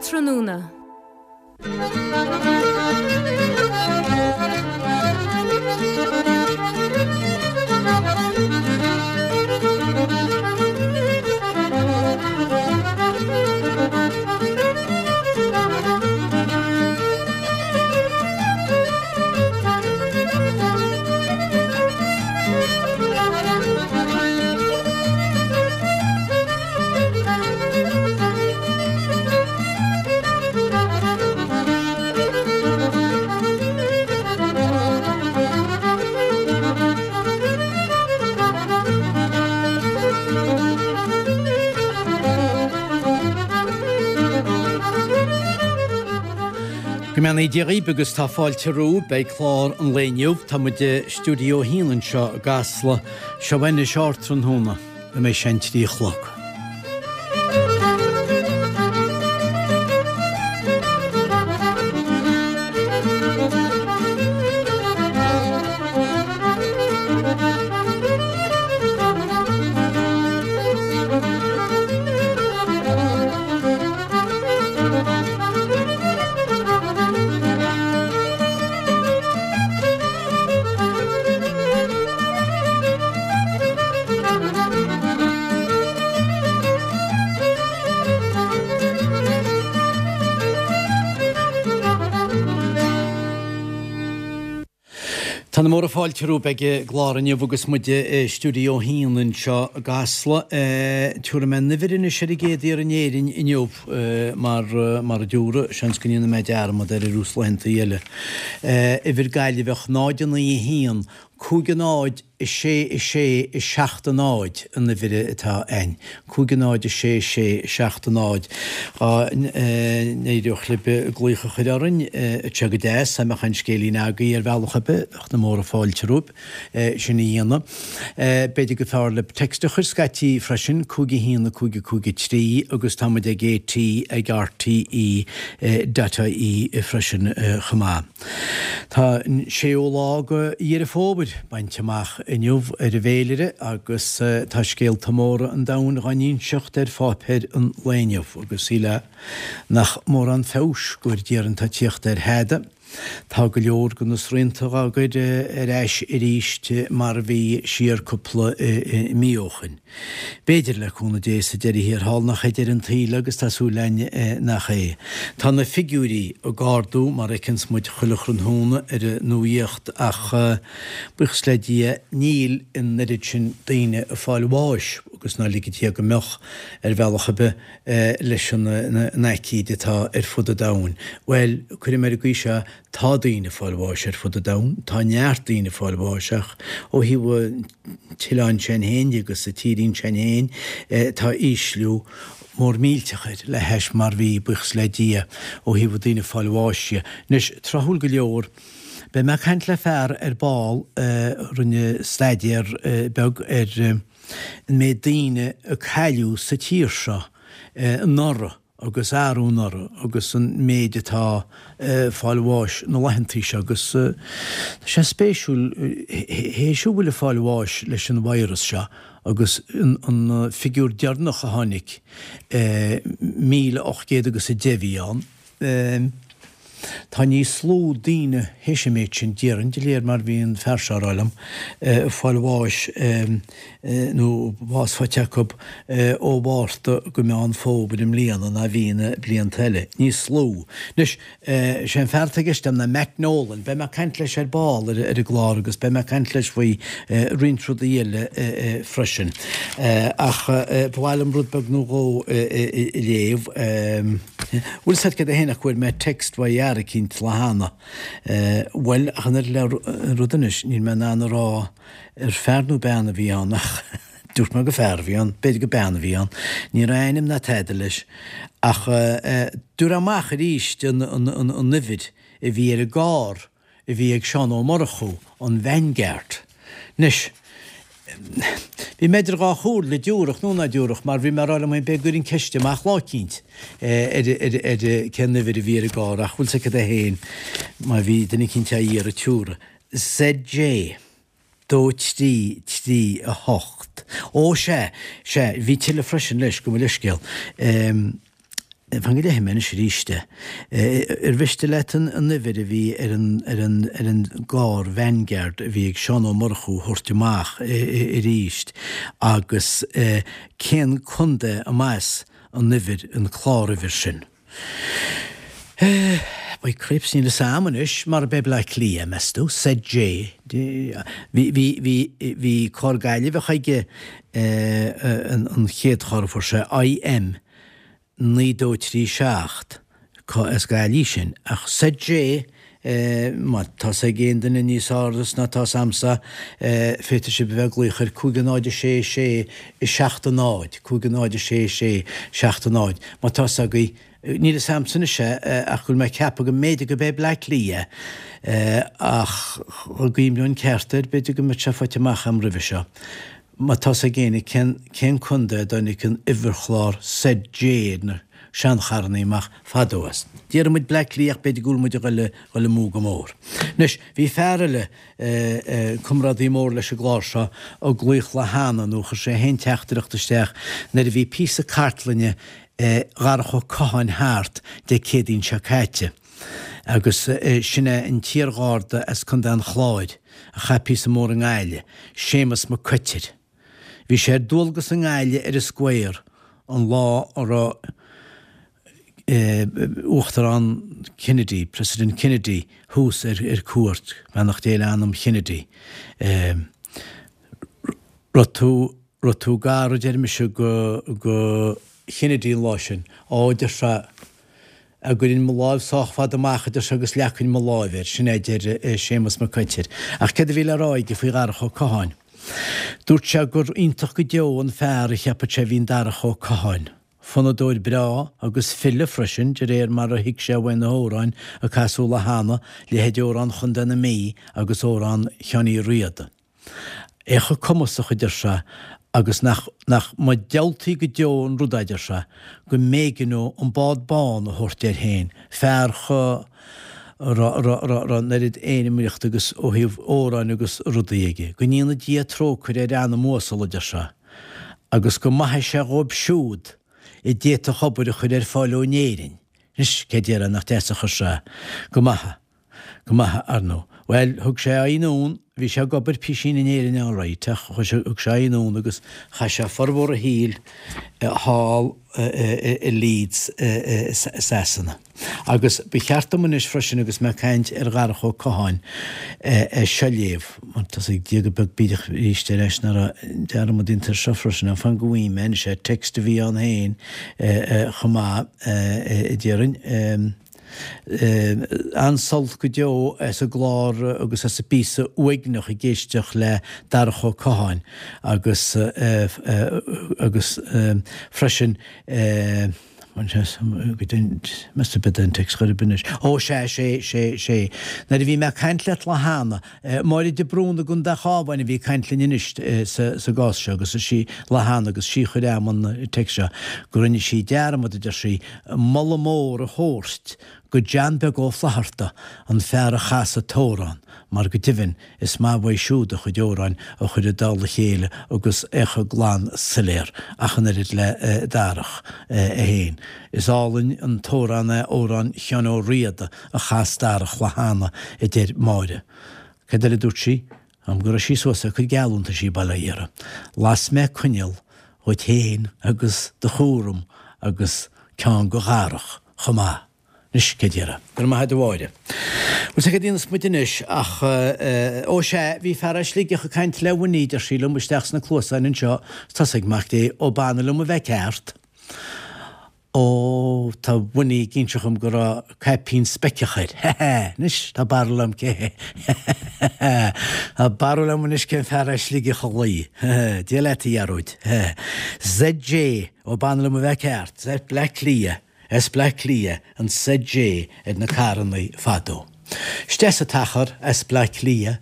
Ardtráthnóna. Go mbeannaí Dia dhaoibh agus tá fáilte romhaibh. Beidh clár an lae inniu. Tá muid i Stiúideo 1 anseo i gCasla. Seo anois Ardtráthnóna. Go mbeidh sé an 3 a chlog. Tá na móra fáilte romhaibh ag an gclár inniu agus muid i Stiúideo 1 anseo i gCasla. Tabharfaidh mé an uimhir anois ar an gcéad iarraidh in Éirinn inniu mar mar a dúradh, seans go ndéanfaidh mé dearmad air ar nós laethanta eile. Uimhir Gaillimheach 0 9 1 5 0 6 6 7 0 an uimhir atá a'inn. 5 0 6 6 7 0. Dá n-éireodh libh glaoch a chur orainn, bheadh sé go deas, dá mbeadh aon scéilín agaibh ar bhealach ar bith, bheadh na móra fáilte romhaibh sin a dhéanamh. B'fhéidir gur fearr libh text a chur scaití freisin, 5 1 5 5 3 agus tá muid ag AT ag RTE dot ie freisin chomh maith. Tá an séú lá de Dheireadh Fómhair bainte amach inniu ar an bhféilire agus tá scéalta móra an domhain dhá n-inseacht ar pháipéir an lae inniu agus shílfeá nach mórán feabhais go bhfóire Dia orainn atá ag tíocht ar thada. Tá go leor de na srianta dhá gcur ar ais arís mar a bhí siar cúpla mí ó shoin. B'fhéidir, le cúnamh Dé, sa deireadh thiar thall nach é deireadh an tsaoil agus tá súil againn nach é. Tá na figiúirí ag ardú mar a fheiceanns muid chuile thráthnóna ar an nuaíocht ach, buíochas le Dia, níl an oiread sin daoine ag fáil bháis agus ná lige Dia go mbeadh, ar bhealach ar bith, leis an aicíd atá ar fud an domhain. Bhuel, cuirfidh mé ar an gcaoi seo, Tá daoine ag fáil bháis ar fud an domhain, tá neart daoine ag fáil bháis ach ó thaobh an t-oileáin sin féin de agus an tírín sin féin tá ísliú mór millteach air le hais mar bhí, buíochas le Dia, ó thaobh daoine ag fáil bháis dhe. Anois, tráthúil go leor, beidh mé ag caint le fear ar ball a rinne staidéar beag ar an méid daoine a cailleadh sa tír seo anuraidh. agus arú anuraidh agus an méid atá ag fáil bháis na laethantaí seo agus tá sé spéisiúil théis a bhfuil ag fáil bháis leis an virus seo agus an figiúr deireanach a tháinig 1,800 agus 10 a bhí ann. Tá níos lú daoine théis an méid sin, déarfainn, de réir mar bhí an fear seo a rá liom, ag fáil bháis nó bás faighte acu ó Mhárta go Meán Fómhair i mbliana ná bhí na blianta eile. Níos lú. Anois, sé an fear atá i gceist agam ná Matt Nolan. Beidh mé ag caint leis ar ball ar an gclár agus beidh mé ag caint leis faoi roinnt rudaí eile freisin. Ach ba mhaith liom rud beag nó dhó a léamh. Bhfuil 's a'd céard é fhéin ach go bhfuair mé text uaidh fhear eicínt lá cheana. Bhuel, ach an oiread le rud anois, níl mé in ann a rá ar fear nó bean a bhí ann ach dúirt mé gur fear a bhí ann, b'fhéidir gur bean a bhí ann. Ní raibh ainm ná tada leis. Ach dúradh amach arís an uimhir a bhí ar an gcarr a bhí ag Seán Ó Murchú, an Vanguard. Anois, bhí mé idir dhá chomhairle, dtiúrfadh nó ná dtiúrfadh, mar bhí mé ag rá liom féin b'fhéidir go gcuirfinn ceist amach lá eicínt ar ar cén uimhir a bhí ar an gcarr, ach bhfuil 's agat é féin, má bhí duine eicínt á iarraidh tiúrfaidh. ZJ. 2 3 3 8. Ó, sea, sea, bhí tuilleadh freisin leis, gabh mo leithscéal. Fan go léifidh mé anois arís é. Ar mhiste leat an uimhir a bhí ar an ar an ar an gcarr Vanguard a bhí ag Seán Ó Murchú a thabhairt amach arís agus cén contae a mb'as an uimhir, an cláruimhir sin? By cripes, níl fhios a'm anois, mar ab é Bleá Cliath, meas tú? ZJ. Bhí, bhí, bhí, bhí carr Gaillimheach aige an chéad charr a fuair sé, IM 9237, as Gaillimh sin, ach ZJ, má tá 's ag aon duine níos fearr ná tá 's a'msa, féadfaidh sibh a bheith ag glaoch ar 5 0 6 6 7 0, 5 0 6 6 7 0, má tá 's agaibh, níl 'fhios a'msa anois é ach go bhfuil mé ag ceapadh go mb'fhéidir go b'é Bleá Cliath é, ach dá gcuimhneoinn ceart air, b'fhéidir go mbeadh sé faighte amach a'm roimhe seo. Má tá 's ag éinne cén cén contae a dtáinig an uimhirchlár ZJ ar na seancharrannaí amach fadó as. Déarfaidh muid Bleá Cliath ach b'fhéidir go bhfuil muid a ghoil ghoil amú go mór. Anois, bhí fear eile, comrádaí mór leis an gclár seo, ag glaoch lá cheana nó chuir sé féin teachtaireacht isteach nuair a bhí píosa cartlainne Dharach Ó Catháin thart Dé Céadaoin seo caite. Agus sin é an t-iargharda as Contae an Chláir a chaith píosa mór i nGaillimh, Séamus Mac Coitir. Bhí sé ar dualgas i nGaillimh ar an Square an lá a raibh Uachtarán Kennedy, President Kennedy, thuas ar cuairt, beannacht Dé le anam Kennedy. Raibh tú, raibh tú gar, a deir mise, go, go Kennedy an lá sin. Á, deir sé, A gcuirfinn mo láimh sách fada amach, a deir sé, agus leagfainn mo láimh air, sin é a deir Séamus Mac Coitir. Ach céard a bhí le rá aige faoi Dharach Ó Catháin? Dúirt sé gur iontach go deo an fear a cheapfadh sé a bhí in Darach Ó Catháin. Fonnadóir breá agus file freisin, de réir mar a thuig sé uaidh na hamhráin a casadh lá cheana, leithéid Amhrán Chontae na Mí agus Amhrán Sheáin Uí Riada. É chomh cumasach, a deir sé, agus nach, nach mba diabhaltaí go deo an rud é, a deir sé, go mb'éigean dó an bád bán a thabhairt air féin, fear chomh, raibh, raibh, raibh, raibh an oiread éanmaíochta agus ó thaobh amhráin agus rudaí aige. Go ndéana Dia trócaire ar anam uasal, a deir sé, agus go maithe sé dhóibh siúd a d'fhéadfadh obair a chur ar fáil dó in Éirinn. Anois, cé déarfá nach deas a chuir sé go maith. Go maith, ar ndóigh. Bhuel, thug sé aghaidh anonn, bhí sé ag obair písín in Éirinn alright ach thug sé aghaidh anonn agus chaith sé formhór a shaoil thall i Leeds i Sasana. Agus ba cheart dom anois freisin agus mé ag caint ar Dharach Ó Catháin é seo a léamh, mar tá 's ag Dia go beag bídeach arís ar ais nach raibh dearmad déanta air seo freisin, fan go bhfaighidh mé anois é, text a bhí ann féin chomh maith, déarfainn. An-sult go deo as an gclár agus as an bpíosa uaigneach ag éisteacht le Darach Ó Catháin agus agus freisin meas tú b'é an text chor ar bith anois. Ó sea, sé, sé, sé. Nuair a bhí mé ag caint leat lá cheana, Máire de Brún i gContae an Chabháin a bhí ag caint linn anois sa gcás seo agus is í lá cheana agus sí a chuir a'm an text seo go rinne sí dearmad, a deir sí, moladh mór a thabhairt go John Beag Ó Flatharta, an fear a chas an t-amhrán, mar go deimhin is maith uaidh siúd a chuid amhráin a chur i dtoll a chéile agus é chomh glan soiléir ach an oiread le Darach é féin. Is álainn an t-amhrán é Amhrán Sheáin Ó Riada a chas Darach lá cheana, a deir Máire. Cad eile a dúirt sí? Am go raibh sí suas ag cur geallúntaisí bail ó Dhia uirthi. Las mé coinneal dhuit féin agus do chúram agus ceann go Dharach chomh maith. Anois, cé déarfá? Go raibh maith a'd a Mháire. Bhuel, sea, cad a dhéanfas muid anois ach, ó sea, bhí fear as Sligeach ag caint le Winnie, deir sí liom, isteach sna cluasáin anseo, 's tá 's ag Mac Dé, ó b'annamh liom a bheith ceart. Ó, tá Winnie ag inse dhom go raibh caipín speiceach air. Hé hé! Anois, tá barúil agam cé hé. Hé hé hé! Tá barúil agam anois cén fear as Sligeach a ghlaoigh. Hé hé! Dia leat, a Ghearóid. Hé hé! ZJ, ó b'annamh liom a bheith ceart, Z Bleá Cliath, S Bleá Cliath, an ZJ ar na carrannaí fadó. Isteach sa t-achar as Bleá Cliath.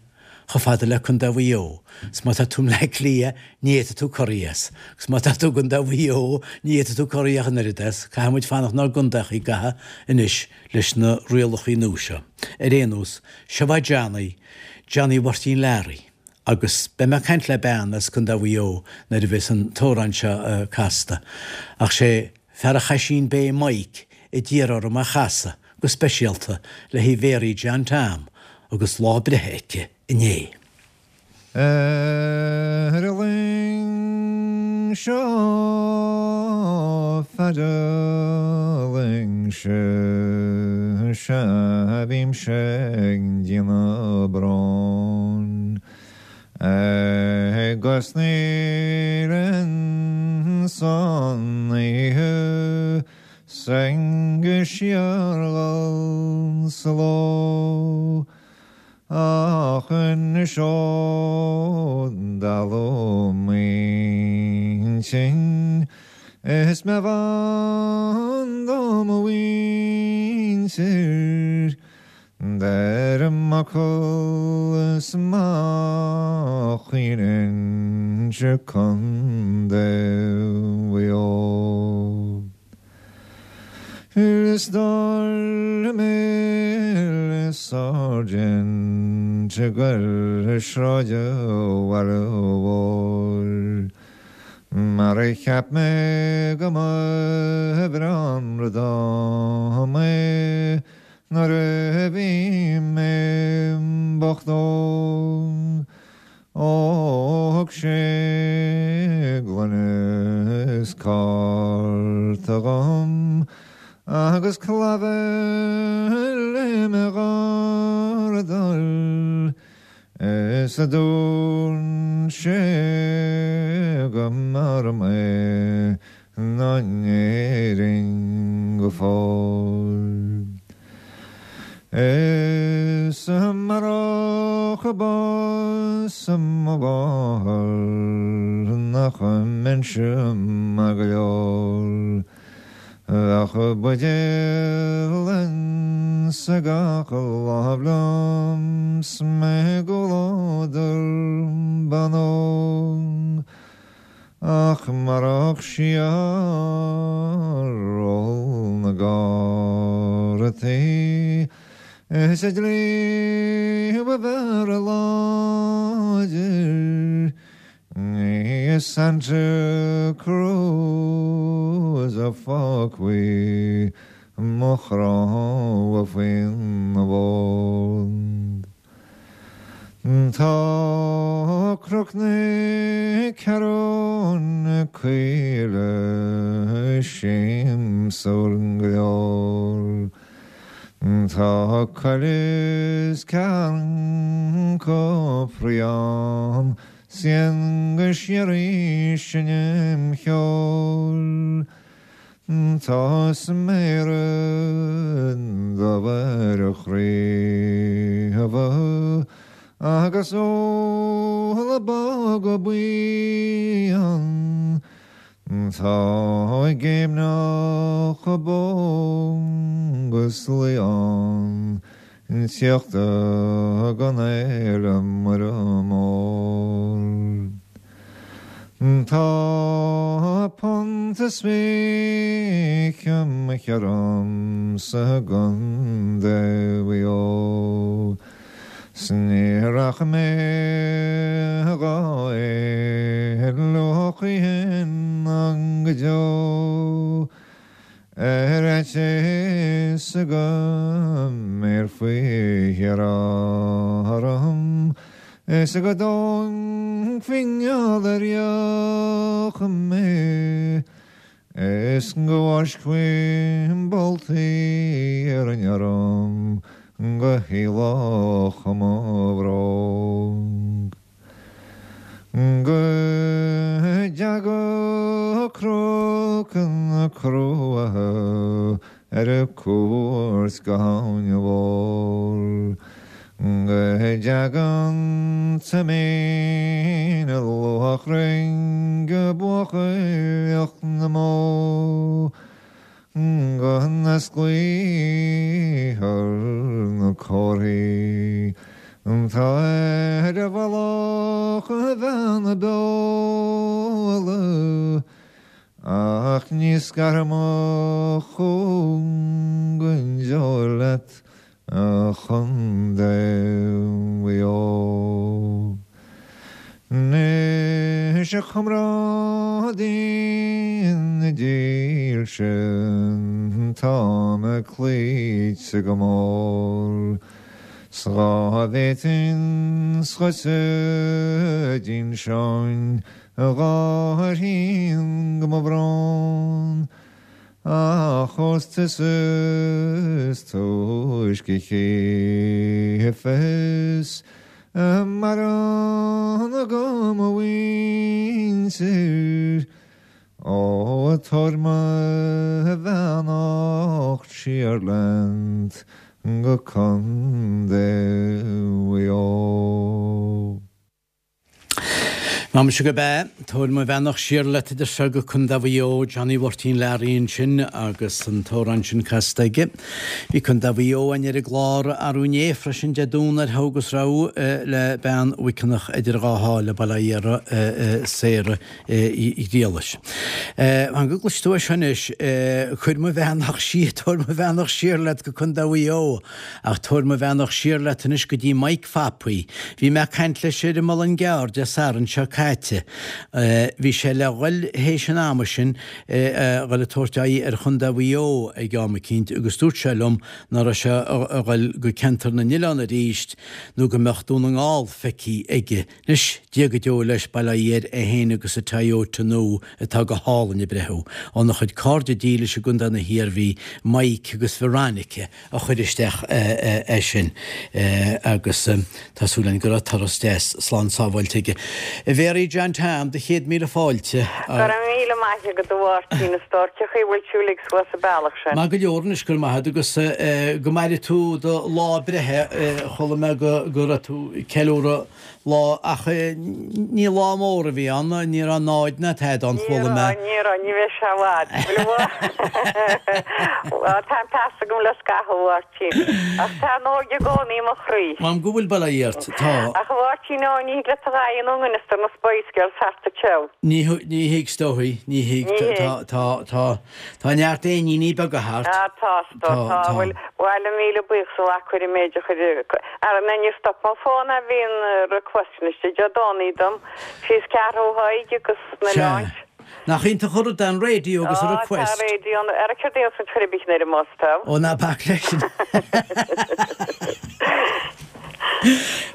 chomh fada le Contae Mhaigh Eo, 's má tá tú i mBleá Cliath, ní fhéadfaidh tú corraí as, 'gus má tá tú i gContae Mhaigh Eo, ní fhéadfaidh tú corraí ach an oiread as, caithfidh muid fanacht 'nár gcontaeachaí i gcaitheamh anois leis na rialachaí nua seo. Ar aon nós, seo é Johnny, Johnny Mháirtín Learaí, agus beidh mé ag caint le bean as Contae Mhaigh Eo nuair a bheas an t-amhrán seo casta, ach sé fear an Chaisín Bay Mike. a d'iarr orm a chasadh go speisialta le haghaidh Mhéaraí John Tom agus lá a breithe aici inné. Ar an luing seo feadh an luing seo sea bímse ag déanamh bróin Agus níl insan oíche 's go síorghal sa ló Ach anois ó dalladh m'intinn Is mé bhan do mo mhuintir Deirim m'fhocal is má chaoineann Contae Mhaigh Eo. Is dóigh liom le Sáirsint ag goil sráid an bhaile mhóir Mar a cheap mé go mba bhreá an rud dom é Nuair a bhí mé bocht óg Ó thug sé gloine is cárta dhom agus clabhar le mo ghardal is a dúirt sé go mb'fhearr mé ná in Éirinn go fóill. Is amárach bás mo mháthar nach mbeinnse maith go leor. Bheadh buidéal insa gach lámh liom 's mé i gcomhluadar ban óg. Ach marach síor-ól na gcártaí is an dlí ba bhfearr láidir, ní i Santa Cruz a fágfaí mo chrann faoina bhord. Tá Cnoc na Ceathrún Caoile siamsúil go leor. Tá coill is carn cofraí ann 's éan go síoraí ag seinm cheoil. Tá sméara dubha ar a chraobha agus úlla bog buí ann. Tá géimneach bó agus lao ann tíocht don Fhéile Muire Mór. Tá punt is 20 mo cheann sa gContae Mhaigh Eo 's ní rachaidh mé dhá éaló choíchin ná go deo. Ar fhaitíos go mbéarfaí thiar orm is go dtógfaí ngeall ar dheoch mé is go bhfáiscfí boltaí iarainn orm go héalódh mo bhróg. Go dteaga Cnoc na Cruaiche ar cuairt go hAbhainn Mhór. Go dteaga an Toimín Luachrainn go buachailleacht na mbó. Go n-osclaíthear na comharthaí atá ar mhullach Bheanna Beola, ach ní scarfaidh mo chúng go deo leat, A Chontae Mhaigh Eo. Anois a chomrádaí dílse Tá mé cloíte go mór 's dhá bhféadfainn dhuitse d'inseoinn a Mháirtín go mba brón ach ós tusa is túisce chífeas a mbarán agam mo mhuintir. Ó tabhair mo bheannacht siar leat go Contae Mhaigh Eo. Má muise gurb ea, tabhair mo bheannacht siar leat a deir sé go Contae Mhaigh Eo, Johnny Mháirtín Learaí ansin agus an t-amhrán sin casta aige. Bhí Contae Mhaigh Eo againn ar an gclár arú inné freisin Dé Domhnaigh ar thugas rabhadh le bean Mhuiceanach idir dhá sháile, bail ó Dhia uirthi, Sarah Uí Ghriallais. Fan go gcloisfidh tú é seo anois, cuir mo bheannacht siar, tabhair mo bheannacht siar leat go Contae Mhaigh Eo, ach tabhair mo bheannacht siar leat anois go dtí Mike Phapaí. Bhí mé ag caint leis ar an Muileann gCearr Dé Sathairn seo caite. Bhí sé le dhul théis an ama sin, a dhul ag tabhairt aghaidh ar Chontae Mhaigh Eo ag am eicínt agus dúirt sé liom ná raibh sé a dhul go ceantar na n-oileán arís nó go mbeadh Dún na nGall feicthe aige. Anois, Dia go deo leis, bail ó Dhia air, é féin agus a Toyota nua atá go hálainn ag breathú. Óna chuid cairde dílis i gContae na hIarmhí, Mike agus Veronica a chuir isteach é sin agus tá súil againn go raibh turas deas slán sábháilte aige. A Mhéaraí John Tom, do chéad míle fáilte. Go raibh míle maith agat a Mháirtín, a stór, cén chaoi a bhfuil tú uilig suas an bealach sin? Maith go leor anois, go raibh maith agat agus go maire tú do lá breithe, chuala mé go raibh tú ag ceiliúradh lá, ach ní lá mór a bhí ann, ní raibh náid ná tada ann, chuala mé. Ní raibh, ní raibh, ní bheidh sé i bhfad. Bhuel, tá an peas agam le scaitheamh, a Mháirtín, ach tá an óige i gcónaí i mo chroí. M'anam go bhfuil, bail ó Dhia ort, tá. Ach a Mháirtín, ó, ní thig leat a dhath a dhéanamh i ngan fhios do na Spice Girls thart anseo. Ní thig, is dóigh, ní thig, tá, tá, tá. Tá neart éiníní beaga thart. Ah tá, tá, tá, bhuel, bhail míle buíochas a mhac chuir an méid a chuir, ara na níor stop mo fón a bhí an request anois Dé Domhnaigh dom, síos Ceathrú Thaidhg agus na Sea. Oileáin. Nach iontach an rud é an radio agus an Ah tá request. radio an, ara céard é an chuir a bith ar an mbus tá. Ó ná bac leis sin.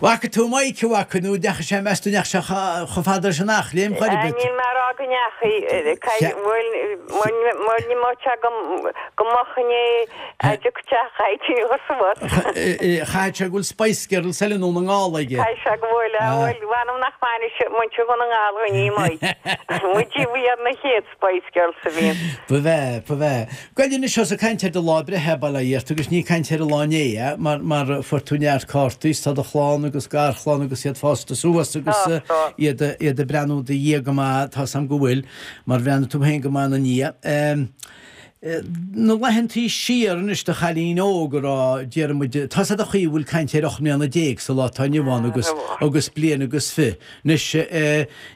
Bhfaca tú Mike, a bhfaca, nó ndeachaigh sé, meas tú ndeachaigh sé chomh fada leis an Eachléim chor ar bith? Níl mé a rá go ndeachaigh, bhuel, ní mbeadh sé go moch inné a dtiocfadh sé chaithfidh tú a chur suas. Chaithfidh sé go bhfuil Spice Girls eile i nDún na nGall aige. Caithfidh sé go bhfuil, bhuel, mh'anam nach mbainfidh muintir Dhún na nGall dhuine í Mike. Muid a bhí ar na chéad Spice Girls a bhí. Ba bhea, ba bhea. Gabh anois ós ag caint ar do lá breithe, bail ó Dhia ort, agus ní ag caint ar an lá inné, mar, mar fuair tú neart cártaí 's tá do chlann agus garchlann agus iad fásta suas agus iad, iad ag breathnú i do dhiaidh go maith, tá's a'm go bhfuil, mar bhreathnaigh tú féin go maith ina ndiaidh. Na laethantaí siar anois do chailín óg a raibh, déarfaidh muid, tá's a'd an chaoi a bhfuil caint ar 18 mbliana sa lá atá inniu ann agus, agus bliain agus fi. Anois,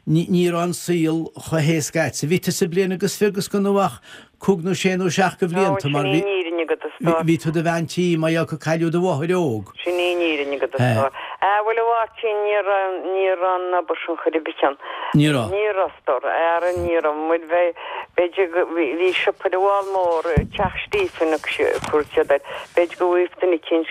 ní raibh an saol chomh héasca a'dsa. Bhí tusa bliain agus fi agus gan tú ach cúig nó sé nó seacht de bhlianta mar Sin í an fhírinne agat, a stór. bhí tú i do bhean tí mar gheall gur cailleadh do mháthair óg. Sin í an fhírinne agat, a stór. Ah, bhuel, a Mháirtín, ní raibh, ní raibh an obair sin chor ar bith ann. Ní raibh. Ní raibh, a stór. Ara, ní raibh. Muid bheith, b'fhéidir go, bhí, bhí siopa ar an bhFál Mór, Teach Stephen a chuir siad air. B'fhéidir go bhfuigheadh duine eicínt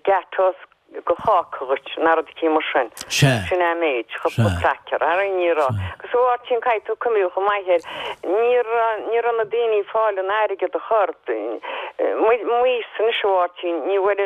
gateaux de cháca dhuit, ná rud eicínt mar sin. Sea. Sin é an méid, cúpla cracker. Ara ní raibh. Agus a Mháirtín, caithfidh tú cuimhniú chomh maith air, ní raibh, ní raibh na daoine ag fáil an airgead a chur. M'aois-sa anois a Mháirtín, ní bhfuair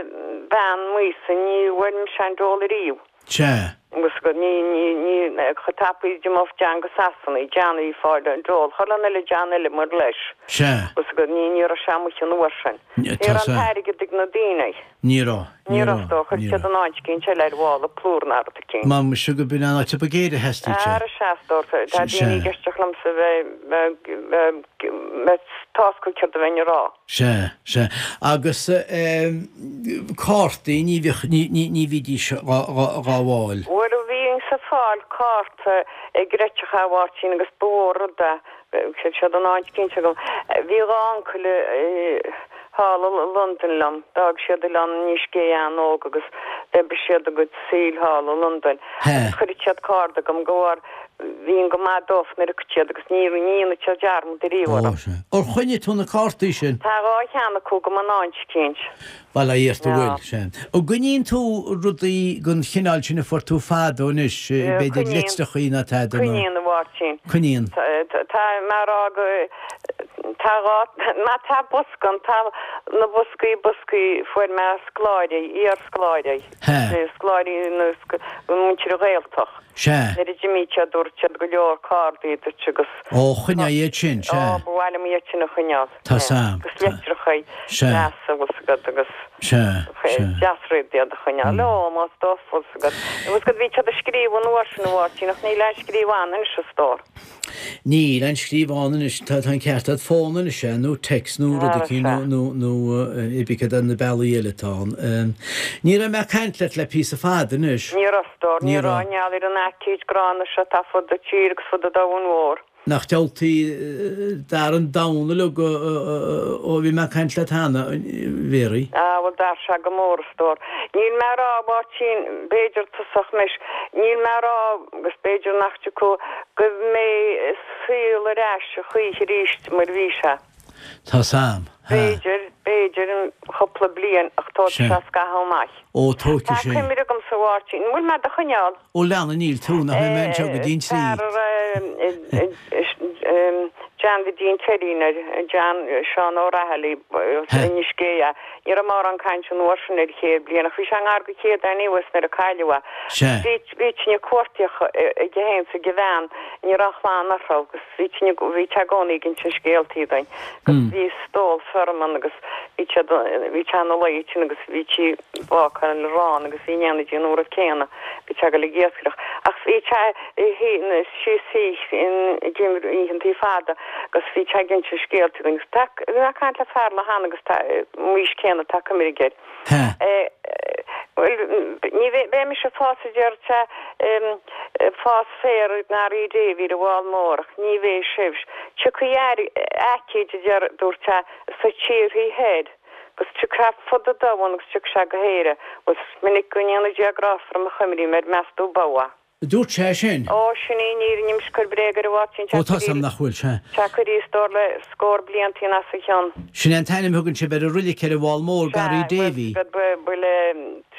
bean m'aois-sa, ní bhfuair mise an dole ariamh. Sea. Agus go, ní, ní, ní, chomh tapaidh d'imeodh John go Sasana, John a bhí ag fáil an dole, chuile dhuine eile John eile mar leis. Sea. Agus go, ní, ní raibh sé amuigh an uair sin. Ní raibh an t-airgead ag na daoine. Ní raibh. Ní raibh, is dócha. Chuir siad in áit eicínt eile ar mhála plúr ná rud eicínt. Má muise go b'in an áit a ba ghéire a theastaigh sé. Ara sea, is dócha. Tá daoine ag éisteacht liomsa a bheith tásca céard a bheinn a rá. Sea, sea. Agus cártaí, ní bhíodh, ní bhídís dhá bhfáil. Bhuel, bhínnse ag fáil cárta ag réiteach a Mháirtín agus ba mhór rud é. Bhí siad in áit eicínt agam. Bhí dhá uncail thall i Londain liom. D'fhág siad Oileán Inis Gé an-óg agus d'oibrigh siad a gcuid saoil thall i Londain. Agus chuireadh siad cárta agam go bharr. bhíonn go maith dófa nuair a thiocfadh siad agus ní ní dhéanfaidh siad dearmad ariamh orm. Ó, sea. Ar choinnigh tú na cártaí sin? Tá 2 cheann acu agam in áit eicínt. Bail ó Dhia ort a bhfuil, sea. An gcoinníonn tú rudaí den chineál sin a fuair tú fadó anois, b'fhéidir litreachaí ná tada nó? Coinníonn, a Mháirtín. Coinníonn. Tá mé a rá go, tá 2, má tá bosca ann, tá na boscaí, boscaí, fuair mé scoláirí, iar-scoláirí. Sea. Scoláirí nó muintir an Ghaeltacht. Sea. Nuair a d'imigh siad dúirt siad go leor cárdaí duit agus. Ó, choinnigh iad sin, sea. Ó, ba mhaith liom iad sin a choinneáil. Tá 's a'm. Agus litreacha Sea. deasa, bhfuil 's agat, agus. Sea, sea. Deas rud iad a choinneáil. Ó, más dófa, bhfuil 's agat. Bhfuil 's agat, bhí siad ag scríobh an uair sin, a Mháirtín, ach níl aon scríobh ann anois, a stór. Níl aon scríobh ann anois, tá an ceart agat, fón anois é, nó text nó rud eicínt nó nó nó cibé cad é na bealaí eile atá ann. Ní raibh mé ag caint leat le píosa fada anois. Ní raibh, a stór, ní raibh, i ngeall ar an aicíd gránna seo atá fud an tír agus fud an domhain mhór. Nach diabhaltaí d'athraigh an domhan uilig ó bhí mé ag caint leat cheana, a Mhéaraí. Á, bhuel d'athraigh sé go mór, a stór. Níl mé a rá, a Mháirtín, b'fhéidir tosach anois, níl mé a rá, agus b'fhéidir nach dtiocfaidh, go mbeidh an saol ar ais a choíche arís mar a bhí sé. Tá 's a'm. Ha. B'fhéidir, b'fhéidir i gcúpla bliain ach tógfaidh Sea. sé scaitheamh amach. Ó, tógfaidh Tá sé. cuimhne agamsa, a Mháirtín, an bhfuil mé do choinneáil? Ó, lean, níl tú, nach mbeidh mé anseo go dtí an trí. Fear a raibh John Bhidín Teidín air, John, Seán Ó Raghallaigh, Ha. Inis Géidhe. Ní raibh mórán cainte an uair sin ar chéad bliain ach bhí sé i ngar do chéad anyways nuair a cailleadh é. Sea. Bhí, bhí tine cuartaíoch aige féin 's ag a bhean, ní raibh aon chlann orthu agus bhí tine, bhí sé i gcónaí ag insint scéaltaí dúinn agus bhí stól feirme ann agus bhí siad, bhí sé ina luí ansin agus bhí sí ag bácáil arán agus bhí in éindí an uair céanna, bhí sé ag dul ag iascaireacht ach bhí sé síos ag oícheantaí fada agus bhí sé ag insint scéaltaí dúinn agus tá, bhí mé ag caint le fear lá cheana agus tá, m'aois céanna tá cuimhne aige air. Ha. Bhuel, ní bheidh, beidh mise ag fás a deir sé, ag fás féir i nGarraí Davy ar an bhFál Mór ach ní bheidh sibh. Tiocfaidh aicíd a deir, dúirt sé, sna tíorthaí thoir agus tiocfaidh sé fud an domhain agus tiocfaidh sé go hÉire. Bhuel, is minic go ndéana Dia grásta orm a chuimrím air, meas tú ab ea? Dúirt sé sin. Ó, sin í an fhírinne, níl mise ag cur bréag air a Mháirtín, Ó, tá's a'm nach bhfuil, sea. Tá curtha a stór le scór bliantaí as a chionn. Sin é an t-ainm a thugann sibh ar an roilig ar an bhFál Mór, Garraí Davy. Sea, bhuel,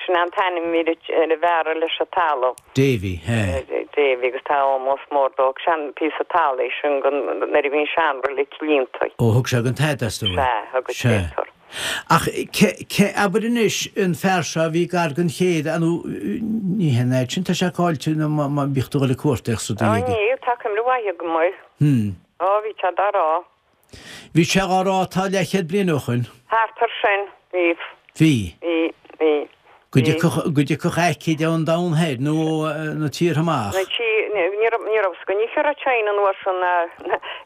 sin é an t-ainm a bhí ar an bhfear a leis an talamh. Davy, sea. Davy, agus tá ómós mór dó. Sean píosa talaimh é sin nuair a bhí an seanroilig líonta. Ó, thug sé don Tada, is dóigh. Sea, thug Sea. sé. Ach ce, abair anois, an fear seo a bhí gar don chéad, nó ní hé an fhad sin, tá sé caillte nó má bhíodh tú ag dul ag cuartaíocht sa Ó dóigh aige. níl, tá cuimhne mhaith agam air. Hmm. Ó, bhí sé dá rá. Bhí sé dhá rá tá leathchéad bliain ó shoin. Thart ar sin, bhí. Bhí. Bhí, bhí. Go dtiocfadh, go dtiocfadh aicíd ón domhan thoir nó ó na tíortha amach. Na tí, ní raibh, ní raibh 's againn cá raibh China an uair sin ná,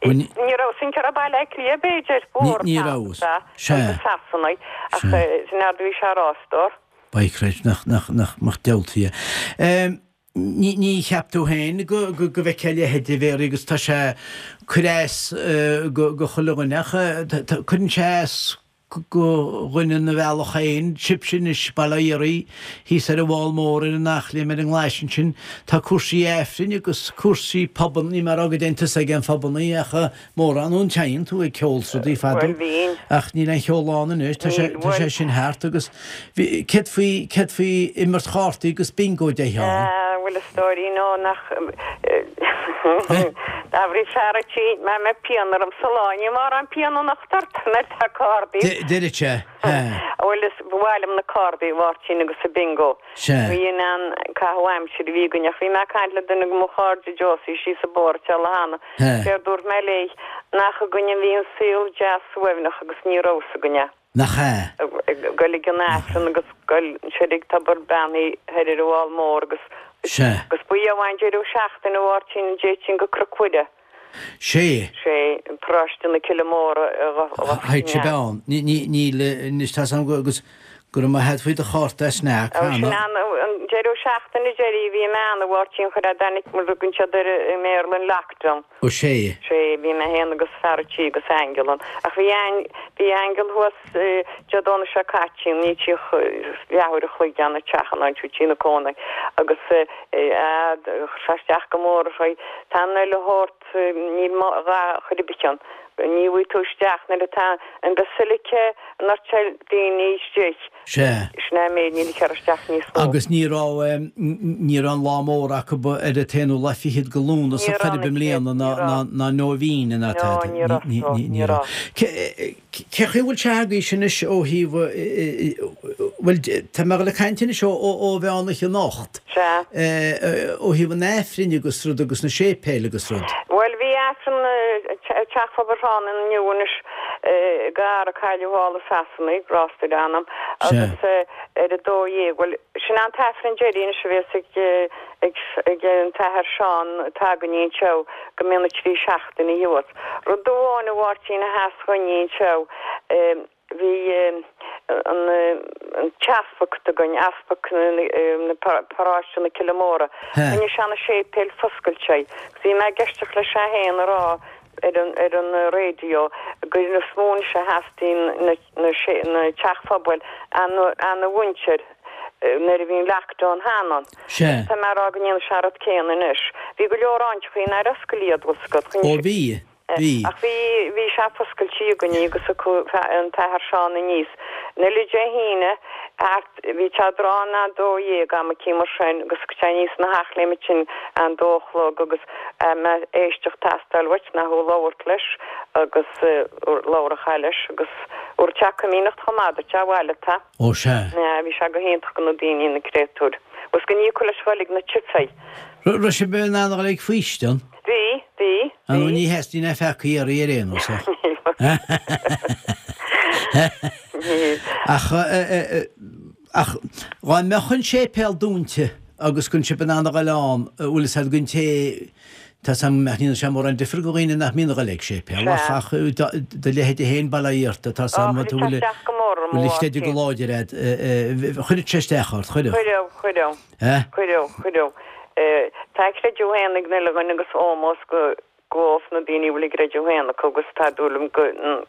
Ní, ní raibh 's againn cá raibh Baile Átha Cliath b'fhéidir, ní, ní raibh. Sea, Sea. agus Sasanaigh, ach Sea. sin é a bhí sé a rá, a stór. By Christ, nach, nach, nach, nach diabhaltaí é. Ní, ní cheap tú féin go, go, go bhfeicfeá a leithéid a Mhéaraí agus tá sé ag cur as go, go chuile dhuine ach tá, tá, cuireann sé as go dhuine ina bhealach féin, sibhse anois, bail ó Dhia oraibh, thíos ar an bhFál Mór, ar an Eachléim, ar an nGlais ansin, tá cúrsaí Aifrinn agus cúrsaí pubanna, níl mé ag rá go dtéann tusa ag aon phubannaí ach mórán, nó an dtéann tú ag ceol 's rudaí fadó, Bhuel, bhínn. ach níl aon cheol ann anois, tá sé, Níl, tá sé bhuel. sin thart agus bhí, céard faoi, céard faoi imirt chártaí agus bingo a dtéifeá ann? Ah, bhuel, a stóirín, ó, nach, D'athraigh fear a' tí, má mbeidh pian orm sa lá, ní mórán pian anocht ort, nuair tá cárdaí. Deireadh sé, he. Bhuel, is ba mhaith liom na cárdaí, a Mháirtín, agus an bingo. Sea. Bhí in ann caitheamh aimsire a bhí againn, ach bhí mé ag caint le duine de mo chairde, Josie, síos an bóthar an lá cheana. He. Séard dúirt mé léi, nach againn a bhí an saol deas suaimhneach agus ní raibh 's againn é. Nach ea? Ag goil ag an Aifreann agus goil soir ag tobar beannaithe thoir ar an bhFál Mór agus Sea. agus ba amháin deireadh seachtaine a Mháirtín an dtéitinn go Cnoc Mhuire. Sé. Sé, paróiste na Cille Móire a Théadh sibh ann. Ní, ní, níl, anois tá's agam go, agus go raibh maith a't faoi do chárta a sneak Ó, sin cheana. an, an. deireadh seachtaine deiridh a bhí mé ann, a Mháirtín, chuir a dtáinig mar a thugann siad air i mBéarla an lockdown. Ó sea. Sea, bhí mé féin agus fear a' tí agus Aingeal ann. Ach bhí bhí Aingeal thuas Dé Domhnaigh seo caite, ní tríoch leathuair a chloig ann a teach an áit tí na cónaí agus eh chuir sé isteach go mór uirthi. Tá an uile shórt, níl a dhath chor ar bith ann. Ní bhfaighidh tú isteach nuair atá an basilica an fhortail daoine istigh. Sea. Sin é an méid, níl ag cur isteach níos mó. Agus ní raibh, ní raibh an lá mór acu ar an t-aonú lá fichead de Lúnasa Ní chor raibh ar bith i mbliana ní ná, ná, raibh. ná nóibhín ná No, tada. ní raibh, Ní, no, ní, ní ní raibh. raibh. Cé, cé chaoi a bhfuil sé agaibhse anois ó thaobh, bhuel, tá mé ag dul ag caint anois ó, ó, ó mheán oíche anocht. Sea. Ó thaobh an Aifrinn agus rud agus na séipéil agus rud. Bhuel, bhí Aifreann i Teach Phobail Thrá inniu anois gar a cailleadh thall i Sasana, grásta ar a anam, agus ar a 12, bhuel, sin an t-Aifreann deiridh anois a bhéas ag ag ag an tAthair Seán atá againne anseo go mbíonn na trí seachtaine thuas. Rud amháin a Mháirtín a sheas dhúinne anseo, Bhí an t-easpag againn, easpag na paráiste na Cille Móra, choinnigh sé na séipéil foscailte. Agus bhí mé ag eisteacht leis é féin a rá ar an ar an raidió gur is mó anois a theastaíonn na na na teach phobail ana mhuintir nuair a bhí an lockdown cheana. Sea. Tá mé a rá go ndéanfaidh sé an rud céanna anois. Bhí go leor áiteachaí nár oscail iad, bhfuil 's agat. Ó bhí. Bhí. Ach bhí, bhí sé foscailte againne agus acu an tAthair Seán aníos. An uile Dé hAoine thart, bhí sé tráth na 12 am eicínt mar sin agus sé aníos ina theach léim ansin an dó a chlog agus mbeadh éisteacht teastáil uait ná thú labhairt leis agus labhrófá leis agus thabharfadh sé coimíneacht chomh maith duit abhaile tá. Ó sea. Bhí sé go hiontach go na daoine na créatúir. Agus go n-íocadh leis dhoiligh na tithe. Raibh sibh in ann a dhul ag faoistean? Bhí, bhí, Ar ndóigh ní theastaíonn aon pheacaí oraibh ar aon nós ach. Ach, ach dhá mbeadh an séipéal dúnta agus go raibh sibh in ann a dhul ann, bhfuil fhios a'd don té, tá 'fhios a'm nach ndéanann sé mórán difir do dhaoine nach mbíonn a dhul ag séipéal ach, ach do leithéide féin bail ó Dhia ort, tá 'fhios a'm, Chuir sé isteach go mór orm, bhfuil a chreideamh go láidir a'd, chuirfeadh sé isteach ort, chuirfeadh. Chuirfeadh, chuirfeadh. Eh? Cuireadh, cuireadh. Tá a gcreideamh féin ag an uile dhuine agus ómós go dhóibh na daoine a bhfuil a gcreideamh féin acu agus tá dúil agam go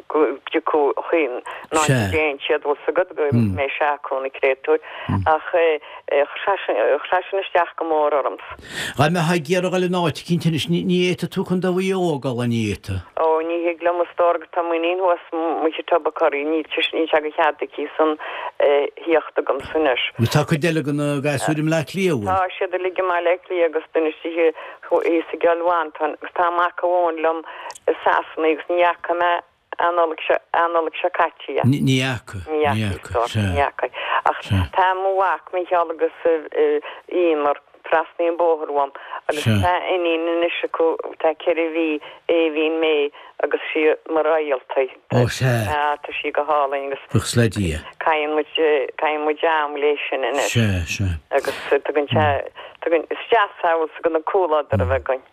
go dtiocfaidh chuin ná Sea. déan siad bhfuil 's agat go mbeidh sé acu na créatúir ach chuir sé sin chuir sé sin isteach go mór ormsa. Dá mbeifeá ag iarraidh dhul in áit eicínt anois ní ní fhéadfadh tú Contae Mhaigh Eo a dhul an bhféadfadh? Ó ní thig liom a stór go tá m'iníon thuas amuigh i Tubbercurry níl níl sé de chead aici san thíocht agamsa anois. Agus tá cuid eile de na gasúir i mBleá Cliath, bhfuil? Tá siad uilig i mBaile Átha Cliath agus duine istigh thíos i gCill Mhantáin agus tá mac amháin liom i Sasana agus ní fhaca mé an Nollaig seo, an Nollaig seo caite é. Ní fhaca, Ní fhaca, sea. Ní fhaca. Ach tá mo mhac Mícheál agus Emer trasna an bóthar uaim agus tá iníon anois acu tá 4 mhí, Aoibhín May agus sí mar réalt í. Ó sea. Tá, tá sí go hálainn agus. Buíochas le Dia. Caitheann muid, caitheann muid am léi sin anois. Sea, sea. Agus tugann sé, tugann, is deas é bhfuil 's agat an comhluadar a bheith againn.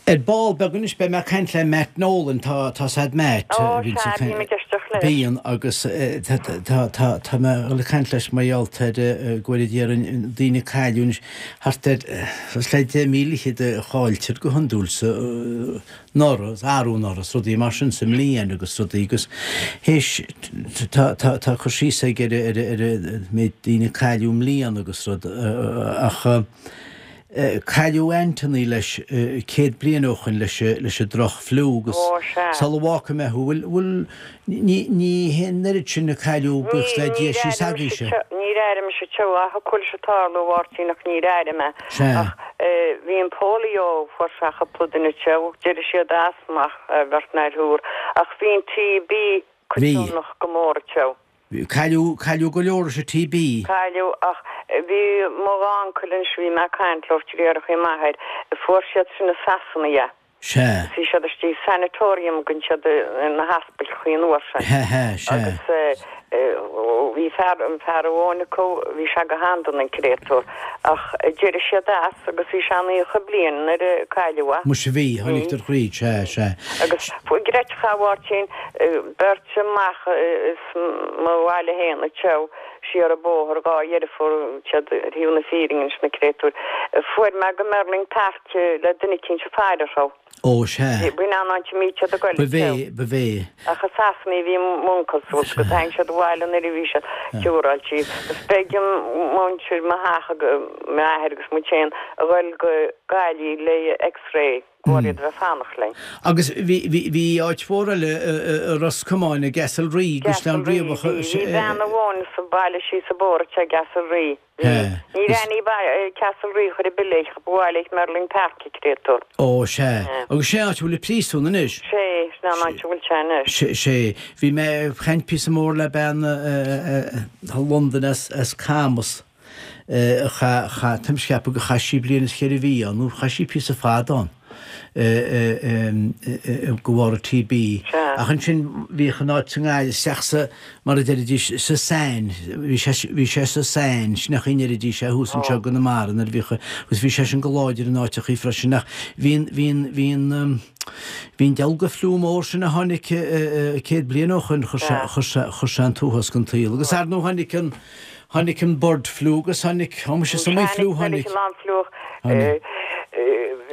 Ar ball beag anois beidh mé ag caint le Matt Nolan, tá, tá 's a'd Matt. Ó sea, bím ag éisteacht leis. Bíonn agus tá, tá, tá, tá mé ag dul ag caint leis mar gheall ar go bhfuil déarfainn daoine ag cailleadh anois thart ar, suas le 10,000 fhichead a chailltear go hiondúil sa, anuraidh, arú anuraidh, is rudaí mar sin sa mbliain agus rudaí agus théis, tá, tá, tá cur síos aige ar, ar, ar an méid daoine a cailleadh i mbliana agus rud ach cailleadh Anthony leis 100 bliain ó shoin leis, leis an droch fliú agus Ó, sea. sula bhfágfaidh mé thú, bhfuil, bhfuil, Ní, ní hé an oiread sin a cailleadh, buíochas le Dia, síos agaibhse. Níor airigh mise teo, ach thiocfadh leis tarlú, a Mháirtín, ach níor airigh mé. Sea. Ach bhí an polio, fuair sé cúpla duine teo, d'éirigh siad as, ach bheirt nó thriúr. Ach bhí an TB coitiannach go mór teo. Bhí. Cailleadh, cailleadh go leor leis an TB. Cailleadh, ach bhí mo uncail anois, bhí mé ag caint leo, deartháireacha m'athair, fuair siad sin i Sasana é. Sea. Bhí siad istigh i sanatorium gan siad na haspailchaí an uair sin. He he, sea. Agus. Bhí fear, an fear amháin acu, bhí sé go han-dona an créatúr, ach d'éirigh siad as agus bhí sé 90 bliain nuair a cailleadh é. Muise bhí, tháinig tar thríd, sea, sea. Agus chreidfeá a Mháirtín, beirt amach as mo bhaile fhéin anseo, siar an bóthar, dhá dheirfiúr, siad ar thaobh na fírinne anois na créatúir, fuair mé go Merlin Park le duine eicínt ag faire orthu. Ó, sea. B'in an áit a mbíodh siad ag goil Ba bhé, ba bhé. Ach i Sasana a bhí m'uncail suas agus tháinig siad abhaile nuair a bhí siad ciúráilte. Agus b'éigean muintir mo theach, m'athair agus muid féin, a ghoil go Gaillimh le X-ray de bharr iad a bheith ag fanacht linn. Agus bhí, bhí, bhí áit mhór eile i Ros Comáin, i gCastle Rí, gCaisleán Riabhach. Bhí, bhí bean amháin sa bhaile síos an bóthar i gCastle Rí. Ní raibh ní Castle Rí chor ar bith léi, ba mhaith léi Merlin Park a créatúr. Ó, sea. Agus sé an áit a bhfuil an príosún anois. Sé, sin an áit a bhfuil sé anois. Sé, sé. Bhí mé ag caint píosa mór le bean i Londain as, as Camas, a chaith, chaith, táim ag ceapadh gur chaith sí bliain is cheithre mhí ann, nó chaith sí píosa fada ann. de bharr an TB. Ach ansin bhíodh an áit sa nGaillimh isteach sa, mar a deiridís, sa tsáinn, bhí sé, bhí sé sa tsáinn, sin an chaoi a ndeiridís é thuas anseo i gConamara nuair a bhíodh, agus bhí sé sin go láidir in áiteachaí freisin ach bhí an, bhí an, bhí an, bhí an dealga fliú mór sin a tháinig 100 bliain ó shoin, chuir sé, chuir sé, chuir sé an t-uafás den tsaol. Agus ar ndóigh tháinig an, Tháinig an bird flu agus tháinig, ó muise is iomaí fliú tháinig. Tháinig an fliú.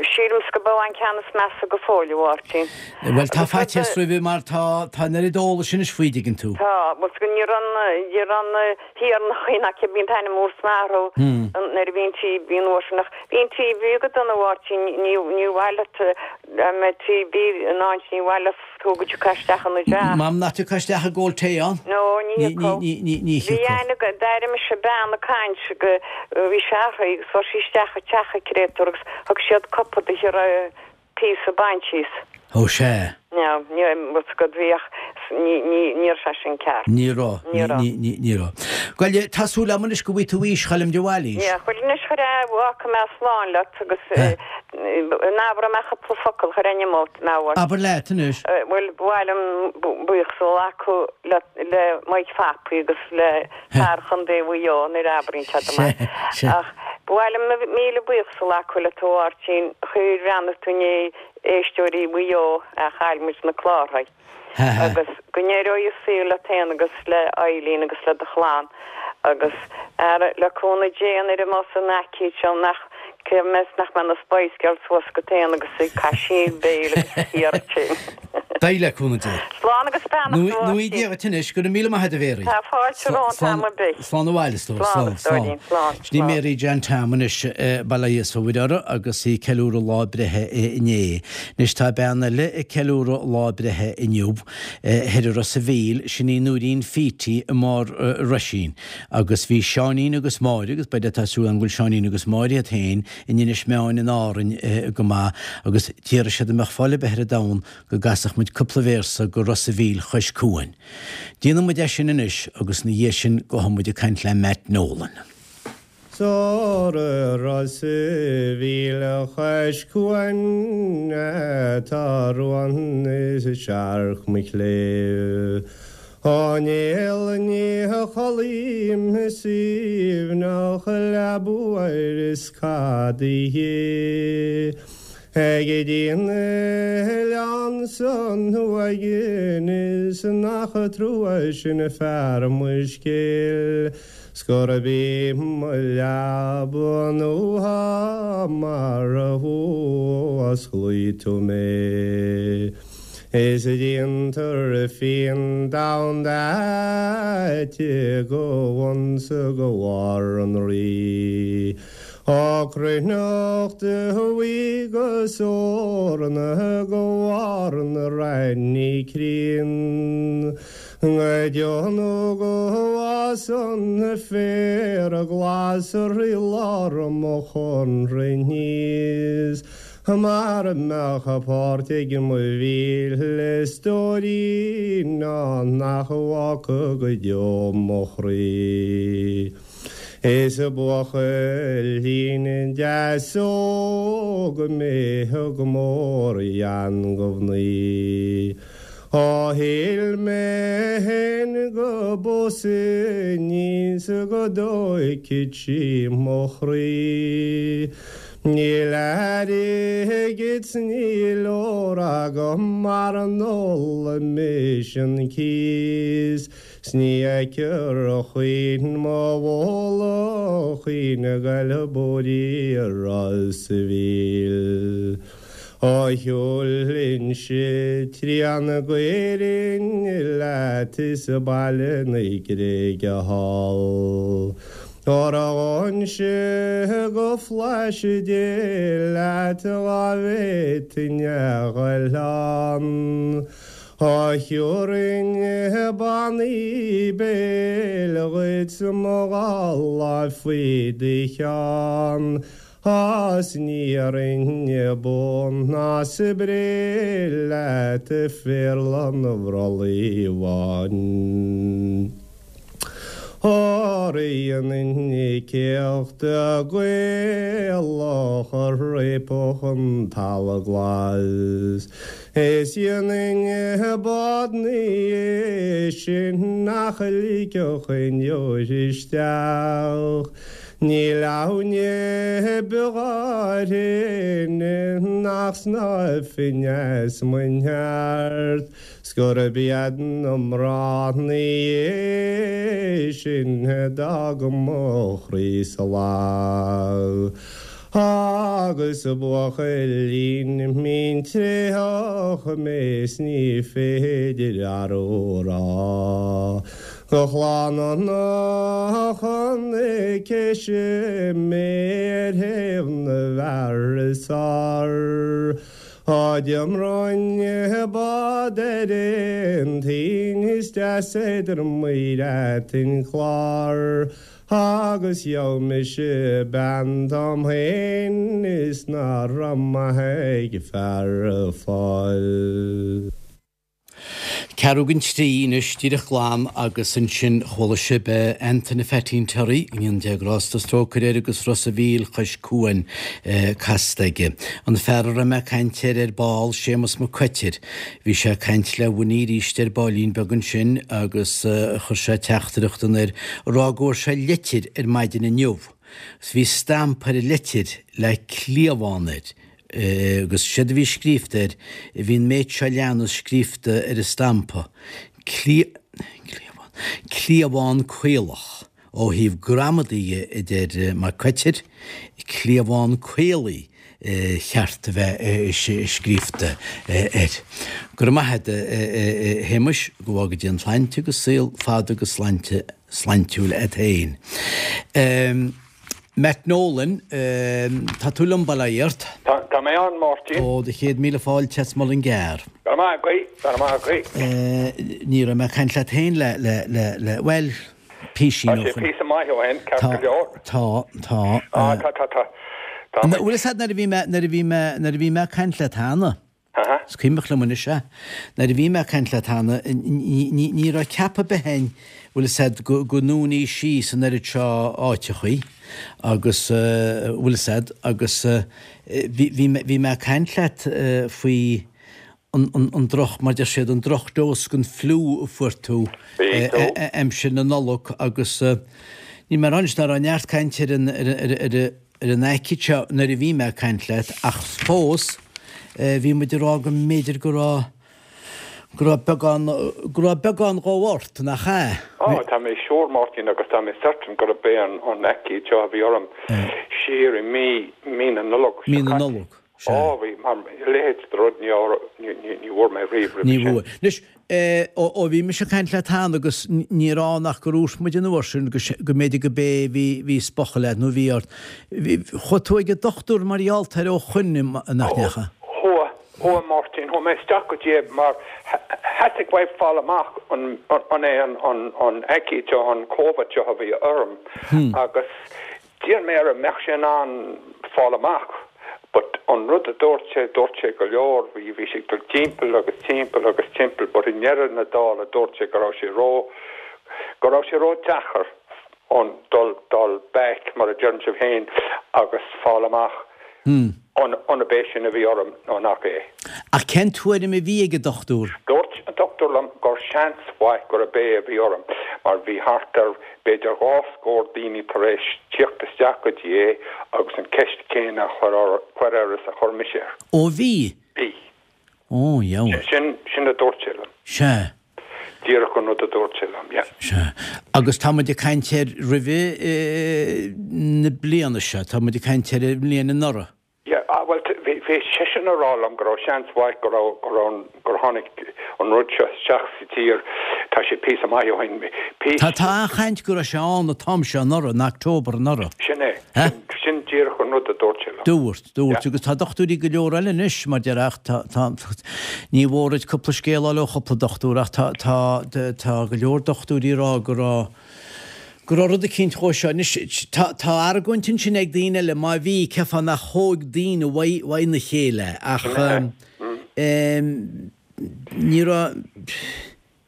Sílimse go b'é an ceann is measa go fóill, a Mháirtín. Bhuel tá faitíos roimhe mar tá, tá an oiread eolais anois faoi, dtuigeann tú. Tá, bhuel ní raibh an, ní raibh an thiarnachaí ná cibé an t-ainm úr san athrú nuair a bhí an TB an uair sin ach bhí an TB go dona a Mháirtín, ní, ní mhaith leat dá mbeadh TB in áit ní mhaith leat tú go dtiocfá isteach ina dteach. M'anam nach dtiocfá isteach ag ól tae ann. No, ní thiocfadh. Ní, ní, ní Bhí thiocfadh. aithne agam, d'airigh mise bean ag caint go, bhí sé uirthi agus fuair sí isteach i teach an créatúr agus thug siad cupa di a raibh píosa bainte as. Ó, sea. No, ní raibh fhios agat, bhí ach ní, ní, ní raibh sé sin ceart. Ní raibh, Ní raibh. ní, ní, ní raibh. Bhuel, tá súil agam anois go bhfaighidh tú aois Choilm de Bhailís. Yeah, bhuel anois chuir a, fágfaidh mé slán leat agus an abróidh mé cúpla focal chuir ainm ort, mé a Abair leat anois. Bhuel, ba mhaith liom buíochas a ghlacadh le, le Mike Phapaí agus le fear Chontae Mhaigh Eo nuair a abraíonn siad amach. Ach ba mhaith liom míle buíochas a ghlacadh leat a Mháirtín, chuir bhreathnaigh tú i ndiaidh éisteoirí Mhaigh Eo a chaill muid na clárthaí. Agus go n-éireoidh an saol leat féin agus le Eileen agus le do chlann agus, ara, le cúnamh Dé nuair a bheas an aicíd seo nach, cé mheas nach mbeidh na Spice Girls suas agat féin agus ag caisín béil agus ag iarraidh tinn. Beidh, le cúnamh Dé. Slán agus beannacht a Nó í Mháirtín. Dia dhuit anois, go raibh míle maith agat a Mhéaraí. Tá fáilte romhat am ar bith. Slán abhaile, a stór. Slán, a stóirín, slán. Sin í Mary Jan Tom anois, Baile Íosa Mhuire orthu agus í ag ceiliúradh lá breithe inné. Anois tá bean eile ag ceiliúradh lá breithe inniu, thoir i Ros a' Mhíl, sin í Nóirín Phítí i mBarr Roisín. Agus bhí Seáinín agus Máire, agus b'fhéidir tá súil agam go bhfuil Seáinín agus Máire iad féin in Inis Meáin in Árainn go maith, agus d'iarr siad an mbeadh fáil ar bith ar an domhan go gcasfadh muid cúpla véarsa go Ros a' Mhíl chois cuain. Déanfaidh muid é sin anois agus ina dhiaidh sin gabhfaidh muid ag caint le Matt Nolan. Soir i Ros a' Mhíl chois cuain tá ruan is searc mo chléibh. Ó néal ní chodlaím i suaimhneach leaba óir is cad é Ag dtí an oileán san uaighin is nach trua sin fear mo scéil 's gurb í mo leaba nua mar a fhuasclaigh tú mé. Is déantar fíon donn aite go bhun 's go bharr an Rí. Ó cruithneacht bhuí go eorna go bharr na raithní críon. Go deo nó go bhfásann féar glas i lár mo chónra aníos Mar a mbeadh páirt ag mo mhíle stóirín ann nach bhfágfadh go deo mo chroí. Is buachaillín deas óg mé go mór ghean go mhnaoi. Ó shíl mé fhéin go bpósfainn í 's go dtóigfeadh sí mo chroí. Níl airgead 's níl ór agam mara n-óla mise an cíos 's ní fheicfear choíche mo bhóla chaoin ag goil bóithrí Ros a' Mhíl. Ó shiúlfainnse trian d'Éirinn leat is Baile na Gréige thall. Ó raghainnse go Flaithis Dé leat dhá bhféadfainn a ghoil ann. Ó thiúrfainn bannaí béil dhuit mo dhá láimh faoi do cheann. A's ní iarrfainn bun ná spré leat a phéarla an bhrollaigh bháin. Óra dhéanfainn céacht Gaelach a réabfadh an talamh glas. Is dhéanfainn bád 'na dhiaidh sin nach ligfeadh aon deoir isteach. Níl aoinne beo áirinn nach snámhfainn as mo neart 's gurb iad na mná 'na dhiaidh sin a d'fhág mo chroí salach. Agus buachaillín mín tréitheach mé 's ní féidir arú a rá. De chlann na chonaicis mé ar thaobh na bhfear is fearr. Á d'iompróinn bád ar aon toinn is deas idir muir an Clár agus gheobhaidh mise bean dom féin is ná raibh maith ag fear a fáil. Ceathrú don trí anois, díreach glan agus ansin chuala sibh Antaine Pheaitín Terry, go ndéana Dia grásta is trócaire air agus Ros a' Mhíl chois cuain casta aige. An fear a raibh mé ag caint air ar ball, Séamus Mac Coitir, bhí sé ag caint le Winnie arís ar baillín beag ansin agus chuir sé teachtaireacht anoir ag rá go bhfuair sé leitir ar maidin inniu. Agus bhí stampa ar an leitir le cliabhán air. Agus séard a bhí scríobhta air, bhí an méid seo leanas scríobhta ar an stampa, cliabhán, cliabhán caolach, ó thaobh gramadaí dhe, a deir Mac Coitir, cliabhán caolaí cheart a bheith scríobhta air. Go raibh maith agat, a Shéamuis, go bhfága Dia an tsláinte agus saol fada agus sláinte sláintiúil agat féin. Matt Nolan, Tá tú liom, bail ó Dhia ort. Tá mé ann, Máirtín. Ó, do chéad míle fáilte as Mullingar. Go raibh maith agaibh, go raibh maith agaibh. Ní raibh mé ag caint leat féin le, le, le, le, bhuel, písín ó shin. Tá sé píosa maith ó shin, ceart go leor. Tá, tá. Á, tá, tá, tá. Tá. Bhfuil fhios agat nuair a bhí mé, nuair a bhí mé, nuair a bhí mé ag caint leat cheana, Is cuimhneach liom anois é. Nuair a bhí mé ag caint leat cheana, ní raibh ceapadh ar bith againn, bhfuil fhios agat, go ndúnfaí síos an oiread seo áiteachaí agus, bhfuil fhios agat, agus bhí mé ag caint leat faoi an droch, mar deir siad, an drochdose den fliú a fuair tú aimsir na Nollag agus níl mé ag rá anois ná raibh neart cainte ar an, ar an, ar an aicíd seo nuair a bhí mé ag caint leat ach fós bhí muid ag rá go mb'fhéidir go raibh, go raibh beagán, go raibh beagán dhó ort, nach ea? Á, tá mé sure, Máirtín, agus tá mé certain gurb é an aicíd seo a bhí orm siar i mí, mí na Nollag seo caite. Mí na Nollag, sea. Á, bhí, mar a leithéid de rud ní, ní, ní bhfuair mé riamh roimhe sin. Ní bhfuair. Anois, Ó bhí mise ag caint leat cheana agus níor fhan ach gur dhúirt muid an uair sin go mb'fhéidir go b'é bhí bhí spochadh leat nó bhí ort. Chuaigh tú ag an dochtúir mar gheall air ó shoin nach ndeachaigh? Chuaigh, chuaigh Máirtín, chuaigh mé isteach go dtí é mar theastaigh uaim fáil amach an an é an an aicíd seo, an Covid seo a bhí orm agus D'iarr mé air an mbeadh sé in ann fáil amach but an rud a dúirt sé, dúirt sé go leor, bhí, bhí sé ag dul timpeall agus timpeall agus timpeall but i ndeireadh na dála dúirt sé go raibh sé ró, go raibh sé ró deacair an dul, dul back mar a deireann sibh féin agus fáil amach an, an ab é sin a bhí orm nó nach é. Ach cén tuairim a bhí ag an dochtúir? Dúirt an. dochtúir liom gur seans mhaith gurb é a bhí orm mar bhí thart ar b'fhéidir 2 scór daoine tar éis tíocht isteach go dtí é agus an ceist chéanna a chur air is a chuir mise air. Ó bhí? Bhí. Ó, dheabhail. Sin, sin a dúirt sé liom. Sea. Díreach an rud a dúirt sé liom, yeah. Sea. Agus tá muid ag caint ar roimhe na bliana seo, tá muid ag caint ar an mbliain anuraidh. Yeah, ah, bhuel, bhí, bhí seisean a rá liom go raibh seans mhaith go raibh, go raibh an, gur tháinig an rud seo isteach sa tír, tá sé píosa maith ó shin, píosa. Tá, tá an-chaint go raibh sé ann an t-am seo anuraidh, in October anuraidh. Sin é, sin, sin díreach an rud a dúirt sé liom. Dúirt, dúirt, agus tá dochtúirí go leor eile anois, mar deir, ach tá, tá, ní mhór duit cúpla scéal a fháil ó chúpla dochtúir ach tá, tá, tá go leor dochtúirí ag rá go raibh, go raibh rud eicínt dhó seo. Anois, tá, tá argóint ansin ag daoine eile, má bhí, cén fáth nach thóg daoine uaidh, uaidh na chéile, ach em, ní raibh,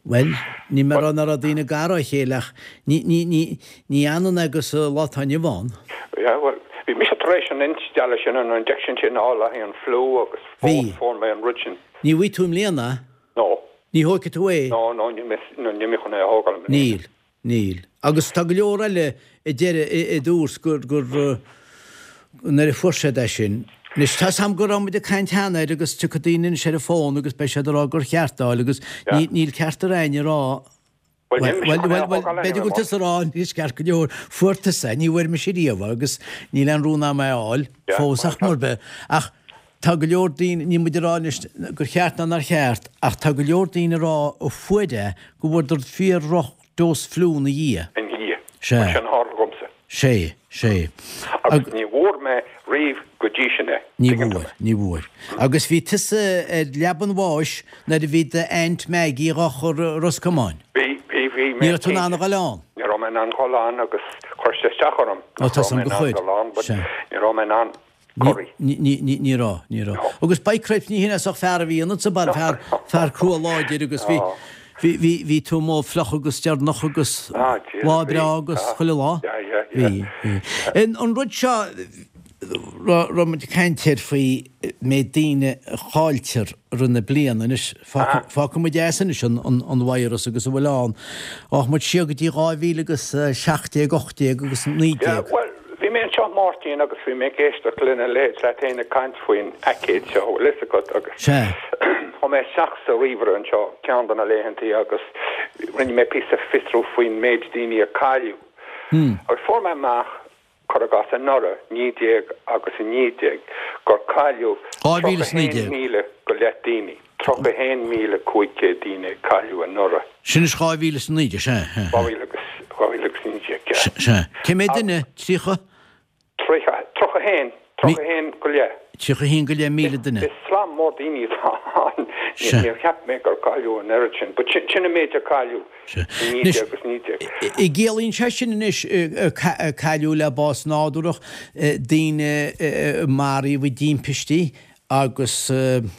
bhuel, níl mé ag rá nach raibh daoine gar dá chéile ach ní, ní, ní, ní ionann agus an lá atá inniu ann. Yeah, bhuel, bhí mise tar éis an instealladh sin, an injection sin a fháil le haghaidh an fliú agus Bhí. fuair mé an rud sin. Ní bhfaighidh tú i mbliana? No. Ní thógfaidh tú é? No, no, níl mé, no, níl mé chun é a thógáil i mbliana. Níl. Níl. Agus tá go leor eile a deir, a dúirt gur, gur, nuair a fuair siad é sin, anois tá 'fhios a'm go raibh muid ag caint cheana air agus tiocfaidh daoine anois ar an bhfón agus beidh siad ag rá gur cheart é a fháil agus ní, níl ceart ar éinne a rá, Bhuel, níl mise bhuel, chun é bhuel, a bhuel, thógáil b'fhéidir go anyway, bhfuil tusa ag rá anois ceart go leor, fuair tusa é, ní bhfuair mise riamh é agus níl aon rún a'm é a fháil Yeah, fós ach mar bith. Ach tá go leor daoine, níl muid ag rá anois gur cheart ná nár cheart, ach tá go leor daoine ag rá a fuair é go bhfuaireadar fíor-dhroch dose fliú ina dhiaidh. Ina dhiaidh. Sea. Sin a tharla dhomsa. Sea, sea. Agus ní bhfuair mé riamh go dtí sin é. Ní bhfuair, ní bhfuair. Agus bhí tusa ar leaba an bháis nuair a bhí d'aint Maggie dhá chur i Ros Comáin. Bhí, bhí, bhí mé. Ní raibh tú in ann a dhul ann. Ní raibh mé in ann dhul ann agus chuir sé isteach orm. Ó, tá 'fhios a'm gur chuir. Sea. Ní raibh mé in ann. Corraí. Ní raibh, ní raibh. Agus by cripes ní hin é sách fear a bhí ionat sa baile, fear, fear crua láidir agus bhí, bhí, bhí, bhí tú amuigh fliuch agus deireanach agus lá breá agus chuile lá. Bhí, bhí. An rud seo, raibh muid ag caint air faoi méid daoine a chailltear i rith na bliana anois, fágfaidh muid as anois an virus agus a bhfuil ann. Rachaidh muid siar go dtí 2000 agus 17, 18 agus 19. Bhuel, bhí mé anseo Máirtín agus bhí mé ag éisteacht lena leithéid leat féin ag caint faoin aicéad seo, bhfuil fhios agat, agus chuaigh mé isteach sa ríomhaire anseo ceann de na laethantaí agus rinne mé píosa fiosrú faoin méid daoine a cailleadh. Agus fuair mé amach cuir i gcás anuraidh, 19 agus 19, gur cailleadh 31,000 go leith daoine, 31,500 daoine a cailleadh anuraidh. Sin is 2019, sea, sea. 2019, yeah. Sea. Cé mhéad duine? 30? 30, 31, 31 go leith. 31 go leith 1,000 duine. Is slám mór daoine atá ann. Níor cheap mé gur cailleadh an oiread sin, but sin an méid a cailleadh i 19 agus 19. An gciallaíonn sé sin anois cailleadh le bás nádúrach, daoine a maraíodh i dtimpistí agus go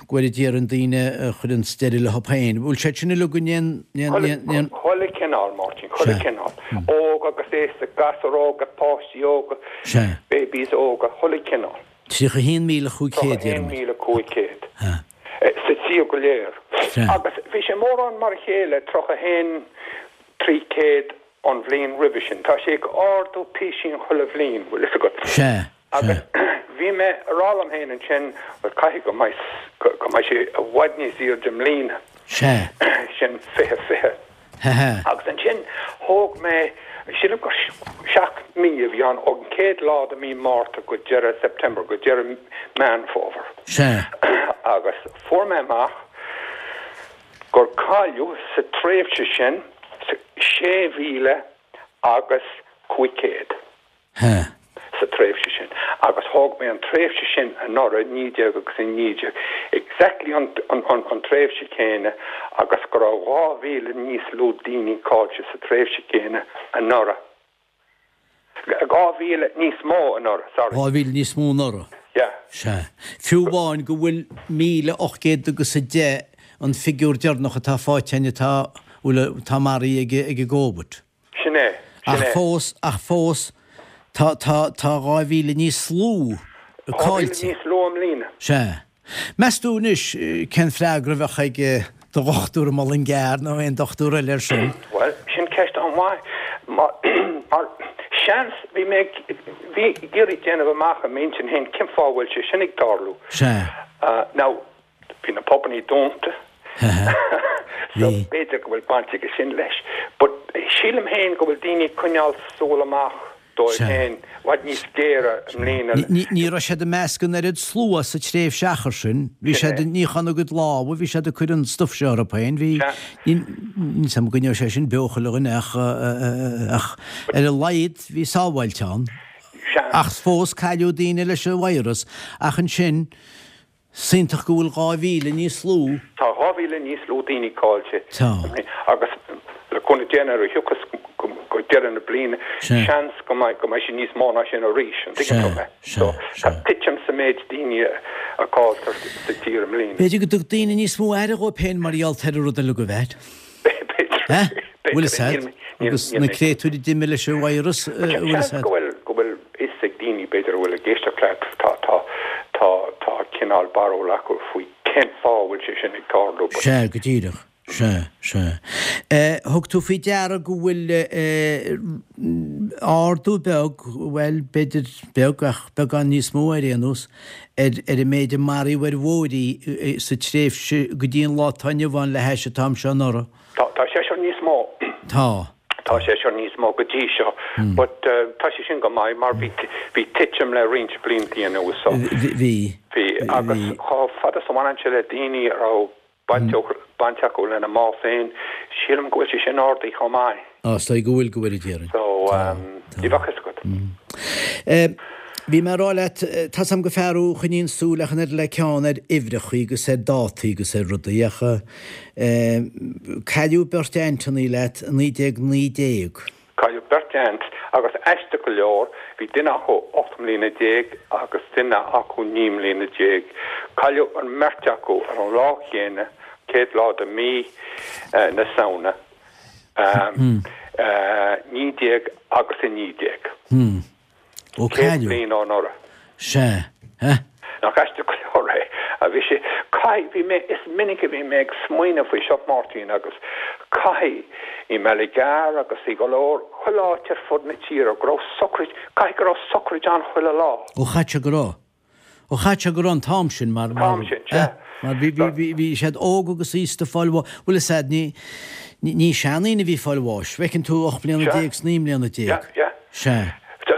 bhfóire Dia orainn daoine a chuireann deireadh leo féin. Bhfuil siad sin uilig in aon. Chuile chineál, Máirtín, chuile chineál. Óg agus aosta, gasúir óga, páistí óga, babies óga, chuile chineál. 31,500, deirimid. 31,500. Sa tír go léir. Agus bhí sé mórán mar a chéile, 31,300 an bhliain roimhe sin. Tá sé ag ardú písín chuile bhliain, bhfuil fhios agat. Sea. Agus bhí mé a rá liom féin ansin, bhuel, caithfidh go mbeidh, go mbeidh sé i bhfad níos airde i mbliana. Sea. Sin 20, 20. Hehe. Agus ansin thóg mé, sílim gur 7 mí a bhí ann, ón chéad lá de mí Márta go deireadh September, go deireadh Meán Fómhair. Sea. Agus fuair mé amach gur cailleadh sa tréimhse sin 6,000 agus 500. He. sa tréimhse sin agus thóg mé an tréimhse sin anuraidh, 19 agus 19, exactly an an tréimhse chéanna agus go raibh 2,000 níos lú daoine caillte sa tréimhse chéanna anuraidh. 2,000 níos mó anuraidh, sorry. 2,000 níos mó anuraidh. Yeah. Sea. Fiú amháin go bhfuil 1,800 agus 10 an figiúr deireanach atá faighte againn atá, bhfuil, atá maraithe ag ag an gCóvid. Sin é. Sin Ach é. fós, ach fós, tá, tá, tá 2,000 níos lú 2,000 caillte. níos lú i mbliana. Sea. Meas tú anois cén freagra a bheadh ag. do dhochtúir i Mullingar nó aon dochtúir eile ar sin? Bhuel, sin ceist an-mhaith. Mar, mar, seans, bhí mé ag, bhí ag iarraidh déanamh amach i m'intinn féin cén fáth a bhfuil sé sin ag tarlú. Sea. Now, bhí na pubannaí dúnta. So, b'fhéidir go bhfuil baint aige sin leis. But sílim féin go bhfuil daoine ag coinneáil súil amach dóibh féin i bhfad níos géire i mbliana. Ní raibh siad ag meascadh an oiread slua sa tréimhse achar sin. Bhí siad ag níochán a gcuid lámha, bhí siad ag cur an stuif seo orthu féin. Bhí, níl 's agam an gcoinneodh sé sin beo chuile dhuine ach, ach ar a laghad bhí sábháilte ann. Ach fós cailleadh daoine leis an virus. Ach ansin, Is iontach go bhfuil 2,000 níos lú. Tá 2,000 níos lú daoine caillte Tá. agus le cúnamh Dé nuair a thiocfas go deireadh na bliana seans go mbeidh go mbeidh sé níos mó ná sin arís, an dtuigeann tú mé? So tá titim sa méid daoine a cailltear sa tír i mbliana. B'fhéidir go dtug daoine níos mó aire dhóibh féin mar gheall ar an rud uilig a bheith. B'fhéidir. Bhfuil fhios a'd? Agus na créatúir a d'imigh leis an virus, bhfuil fhios a'd? Go bhfuil, go bhfuil fhios ag daoine, b'fhéidir, a bhfuil ag éisteacht leat, tá, tá, tá, tá cineál barúil acu faoi cén fáth a bhfuil sé sin ag tarlú. Sea, go díreach. Sea, sea. Thug tú faoi deara go bhfuil ardú beag, bhuel, b'fhéidir beag ach beagán níos mó ar aon nós, ar ar an méid a maraíodh ar bhóithrí sa tréimhse go dtí an lá atá inniu ann le hais an t-am seo anuraidh. Tá, tá sé seo níos mó. Tá. Tá sé seo níos mó go dtí seo. But tá sé sin go maith mar bhí, bhí titim le roinnt bliantaí anuas so. Bhí. Bhí. Agus chomh fada is a bhaineann sé le daoine a raibh baint, baint acu lena mbás féin, sílim go bhfuil sé sin ardaithe chomh maith. Á, is dóigh go bhfuil, go bhfuil a déarfainn. So, ní bheadh fhios agat. Bhí mé ag rá leat, tá's a'm gur fear thú a choinníonn súil ach an oiread le ceann ar uimhreachaí agus ar dátaí agus ar rudaí ach cailleadh beirt ainteannaí leat i 1919. Cailleadh beirt aint agus aisteach go leor bhí duine acu 18 mbliana agus duine acu 19 mbliana. Cailleadh an mbeirt acu ar an lá chéanna, chéad lá de mí na Samhna. 19 agus 19. Ó cailleadh. bliain ó anuraidh. Sea. Eh? Nach aisteach go leor é? A bhí sé, caithfidh, bhí mé, is minic a bhí mé ag smaoineamh faoi seo, Máirtín, agus caithfidh, i mBallygar agus i go leor, chuile áit ar fud na tíre, go raibh socraid, caithfidh go raibh socraid ann chuile lá. Ó chaithfidh sé go raibh. Ó chaithfidh sé go raibh an t-am sin mar, mar, An t-am sin, sea. mar bhí, bhí, bhí, bhí siad óg agus aosta ag fáil bháis, bhfuil fhios a'd, ní, ní, ní seandaoine a bhí ag fáil bháis, bhfeiceann tú 18 mbliana is 19 mbliana. Sea, sea. Sea.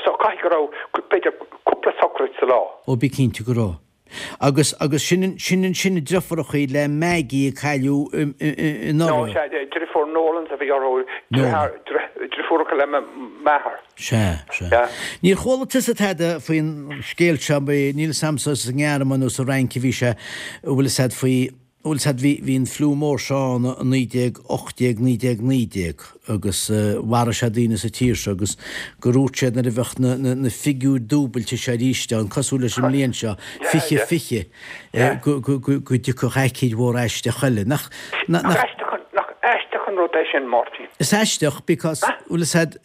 So caithfidh go raibh, b'fhéidir, cúpla socraid sa lá. Ó bí cinnte go raibh. Agus, agus sin, sin ansin driofúrachaí le Maggie a cailleadh anuraidh. No, sea, driofúr Nolans a bhí orthu, driofúracha le m'athair. Sea, sea. Níor chuala tusa tada faoin scéal seo, níl 'fhios a'msa sa nGearmáin nó sa Fhrainc a bhí sé, bhfuil 'fhios a'd faoi, bhfuil 'fhios a'd bhí, bhí an fliú mór seo ann i 1918, 1919 agus mharaigh sé daoine sa tír seo agus gur dhúirt siad nuair a bheadh na, na, na figiúir dúbailte seo arís ann, cosúil leis an mbliain seo, 20, 20, go, go, go, go dtiocfadh aicíd mhór aisteach eile. Nach, nach, nach. Nach aisteach an, nach aisteach an rud é sin, Máirtín? Is aisteach because, bhfuil 'fhios a'd,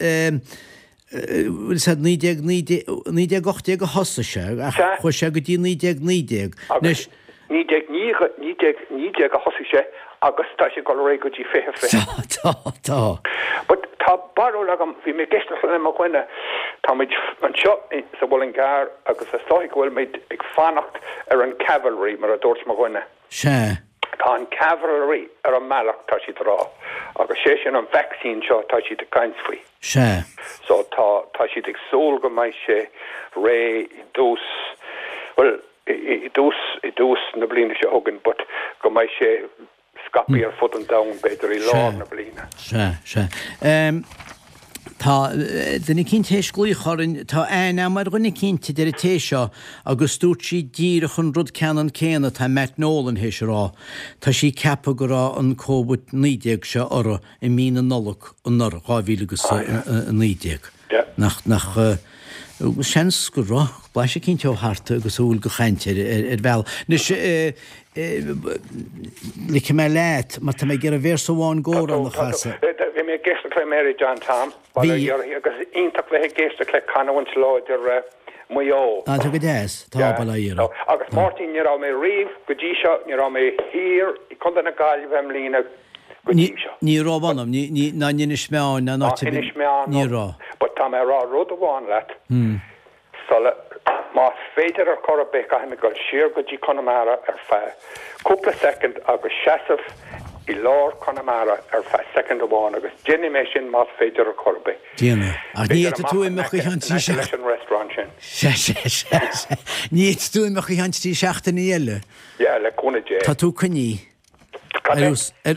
bhfuil 'fhios a'd, 1919, 1918 a thosaigh sé ach chuaigh sé go dtí 1919. Anois. 1919 a thosaigh sé agus tá sé ag dul ar aghaidh go dtí 2020. Tá, tá, tá. But tá barúil agam, bhí mé ag éisteacht le mo dhuine, tá muid anseo sa Mhuileann gCearr agus is dóigh go bhfuil muid ag fanacht ar an cavalry mar a dúirt mo dhuine. Sea. Tá an cavalry ar an mbealach, tá siad ag rá, agus sé sin an vaccine seo atá siad ag caint faoi. Sea. So tá, tá siad ag súil go mbeidh sé réidh i dtús, bhuel, i dtús, i dtús na bliana seo chugainn, but go mbeidh sé scaipthe ar fud an domhain b'fhéidir i lár na bliana. Sea, sea. Tá duine eicínt théis glaoch orainn, tá aithne agam ar dhuine eicínt, a deir an té seo, agus dúirt sí díreach an rud ceannann céanna atá Matt Nolan théis a rá. Tá sí ag ceapadh go raibh an Covid-19 seo orthu i mí na Nollag anuraidh, 2019. Nach, nach, seans go raibh blaiseadh eicínt ó thart agus a bhfuil de chaint ar, ar bhealach. Anois, ligfidh mé leat, mar tá mé ag iarraidh véarsa amháin d'amhrán a chasadh. Bhí mé ag éisteacht le Mary John Tom, bail ó Dhia uirthi, agus iontach bheith ag éisteacht le canúint láidir. Maigh Eo. Ah, tá go deas. Tá, bail ó Dhia oraibh. Agus Máirtín, ní raibh mé riamh go dtí seo, ní raibh mé thiar i gContae na Gaillimhe i mbliana go dtí seo. Ní raibh anam, ní, ní, ná in Inis Meáin, ná in áit ar bith. Inis Meáin, ní raibh. But tá mé ag rá rud amháin leat, sula, más féidir ar chor ar bith, caithfidh mé dul siar go dtí Conamara ar feadh cúpla soicind agus seasamh i lár Chonamara ar feadh soicind amháin agus déanfaidh mé sin más féidir ar chor ar bith. Déan é. Ach ní fhéadfaidh tú imeacht go ceann trí seachtaine. leis an restaurant sin. Sea, sea, sea, sea. Ní fhéadfaidh tú imeacht go ceann trí seachtainí eile. Yeah, le cúnamh Dé. Tá tú coinnithe. Cad é?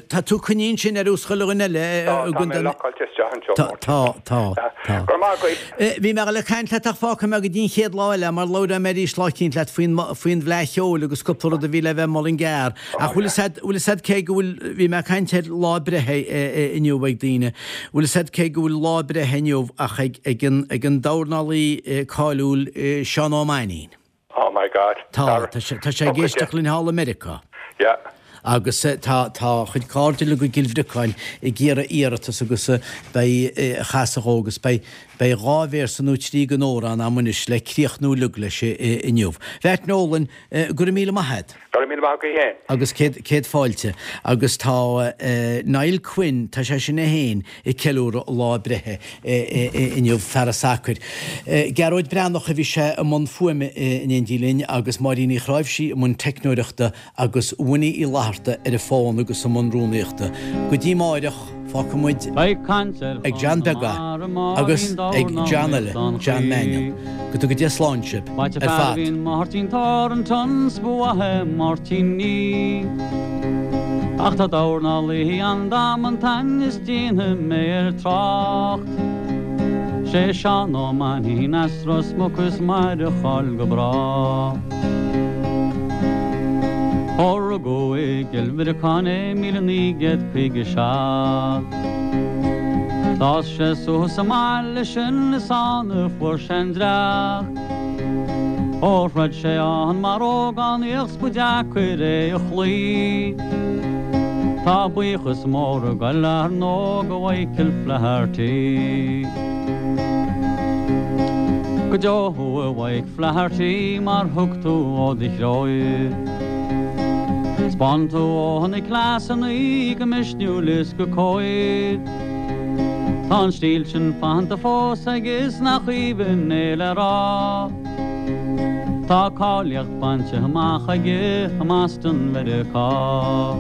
Tá tú coinnithe ansin ar nós chuile dhuine eile. Tá, tá mé lockáilte isteach anseo. Tá, tá, tá, tá. Go raibh maith agat. Bhí mé ag dul ag caint leat ach fágfaidh mé go dtí an chéad lá eile mar labhróidh mé arís lá eicínt leat faoin, faoin bhFleadh Cheoil agus cúpla rud a bhí le bheith i Mullingar. Ach bhfuil fhios a'd, bhfuil fhios a'd cé go bhfuil, bhí mé ag caint ar lá breithe inniu ag daoine, bhfuil fhios a'd cé go bhfuil lá breithe inniu ach ag, ag an, ag an dornálaí cáiliúil Seán Ó Mainnín. Oh my God. Tá, tá sé, tá sé ag éisteacht linn thall i Meiriceá. Yeah. Agus tá, tá a chuid cairde uilig i gCill Bhriocáin ag iarraidh iarratas agus beidh, a chasadh dhó agus beidh, beidh dhá véarsa nó trí den amhrán a'm anois le críochnú uilig leis inniu. Bheait Nolan, go raibh míle maith a'd. Go raibh míle maith agat féin. Agus céad, céad fáilte. Agus tá Niall Quinn, tá sé sin é féin ag ceiliúradh a lá breithe inniu, fear an tsacair. Gearóid Breathnach a bhí sé i mbun fuaime in éindí linn agus Máirín Uí Chráimhsí i mbun teicneoireachta agus Winnie Uí Fhlatharta ar an bhfón agus i mbun rúnaíochta. Go dtí amáireach, fágfaidh muid ag John Beag agus ag John eile, John Mannion. Go dtuga Dia slán sibh ar fad. Máirtín Thornton 's ba mhaith é Máirtín Ní Ach tá dornálaí ann damanta is déanfaidh mé air trácht Sé Seán Ó Mainnín as Ros Muc is mair a cháil go brách Ó rugadh i gCill Bhriocáin é 1957 D'fhás sé suas sa mbaile sin is ann a fuair sé an dreach. Ó throid sé ann mar ógánaíoch 's ba deacair é a chloí. Tá buíochas mór ag goil ar ndóigh go Mhichael Flaherty. Go deo thú a Mhike Flaherty mar thug tú ó do chroí. 'Spáin tú ó na cleasanna go misniúil is go cóir. Tá an stíl sin fanta fós aige is nach aoibhinn é le rá. Tá cáilíocht bainte amach aige i mBoston Mheiriceá.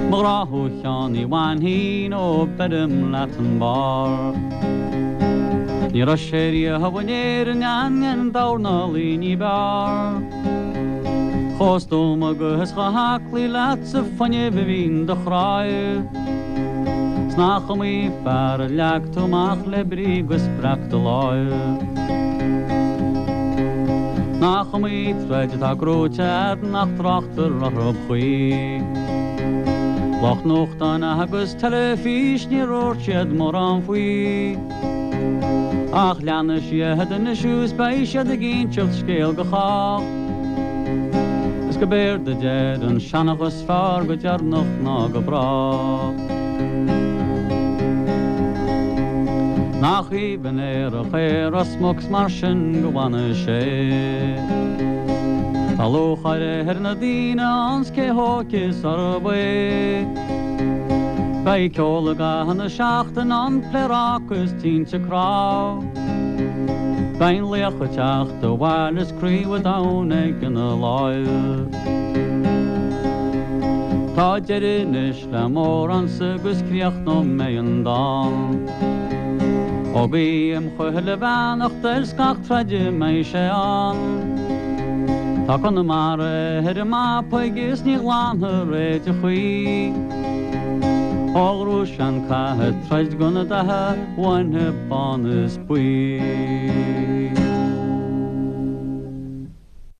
Mo ghrá thú a Sheáin Uí Mhainnín ó beirim leat an barr. Ní raibh sé riamh in Éirinn aon dornálaí ní b'fhearr. Chomh stuama agus chomh haclaí leat sa fuinneamh a bhí in do chroí. 'S nach iomaí fear a leag tú amach le brí 'gus breac do láimhe. Nach iomaí troid atá gnóite a'd nach dtráchtar orthu choíche. Lucht nuachtáin agus teilifís ní dhúirt siad mórán faoi. Ach leanfaidh siad anois is beidh siad ag inseacht scéal go chách. Is go b'éard a deir an seanchas is fearr go deireanach ná go brách. Nach aoibhinn aerach é Ros Muc 's mar sin go bhfanfaidh sé. Tá lúcháir ar na daoine ann 's cé hóige is arb é. Beidh ceol i gcaitheamh na seachtaine ann, pléaráca is tinte cnámh. Beidh an laoch ag teacht abhaile is craobh an domhain aige ina láimh. Tá deireadh anois le m'amhránsa agus críochnóidh mé an dán. Ó guím chuile bheannacht air 's gach troid a mbeidh sé ann. Tá Conamara ar an mapa aige is ní ghlanfar é de choíche. Ó ghnóthaigh sé an cath ag troid do na datha bána bán is buí.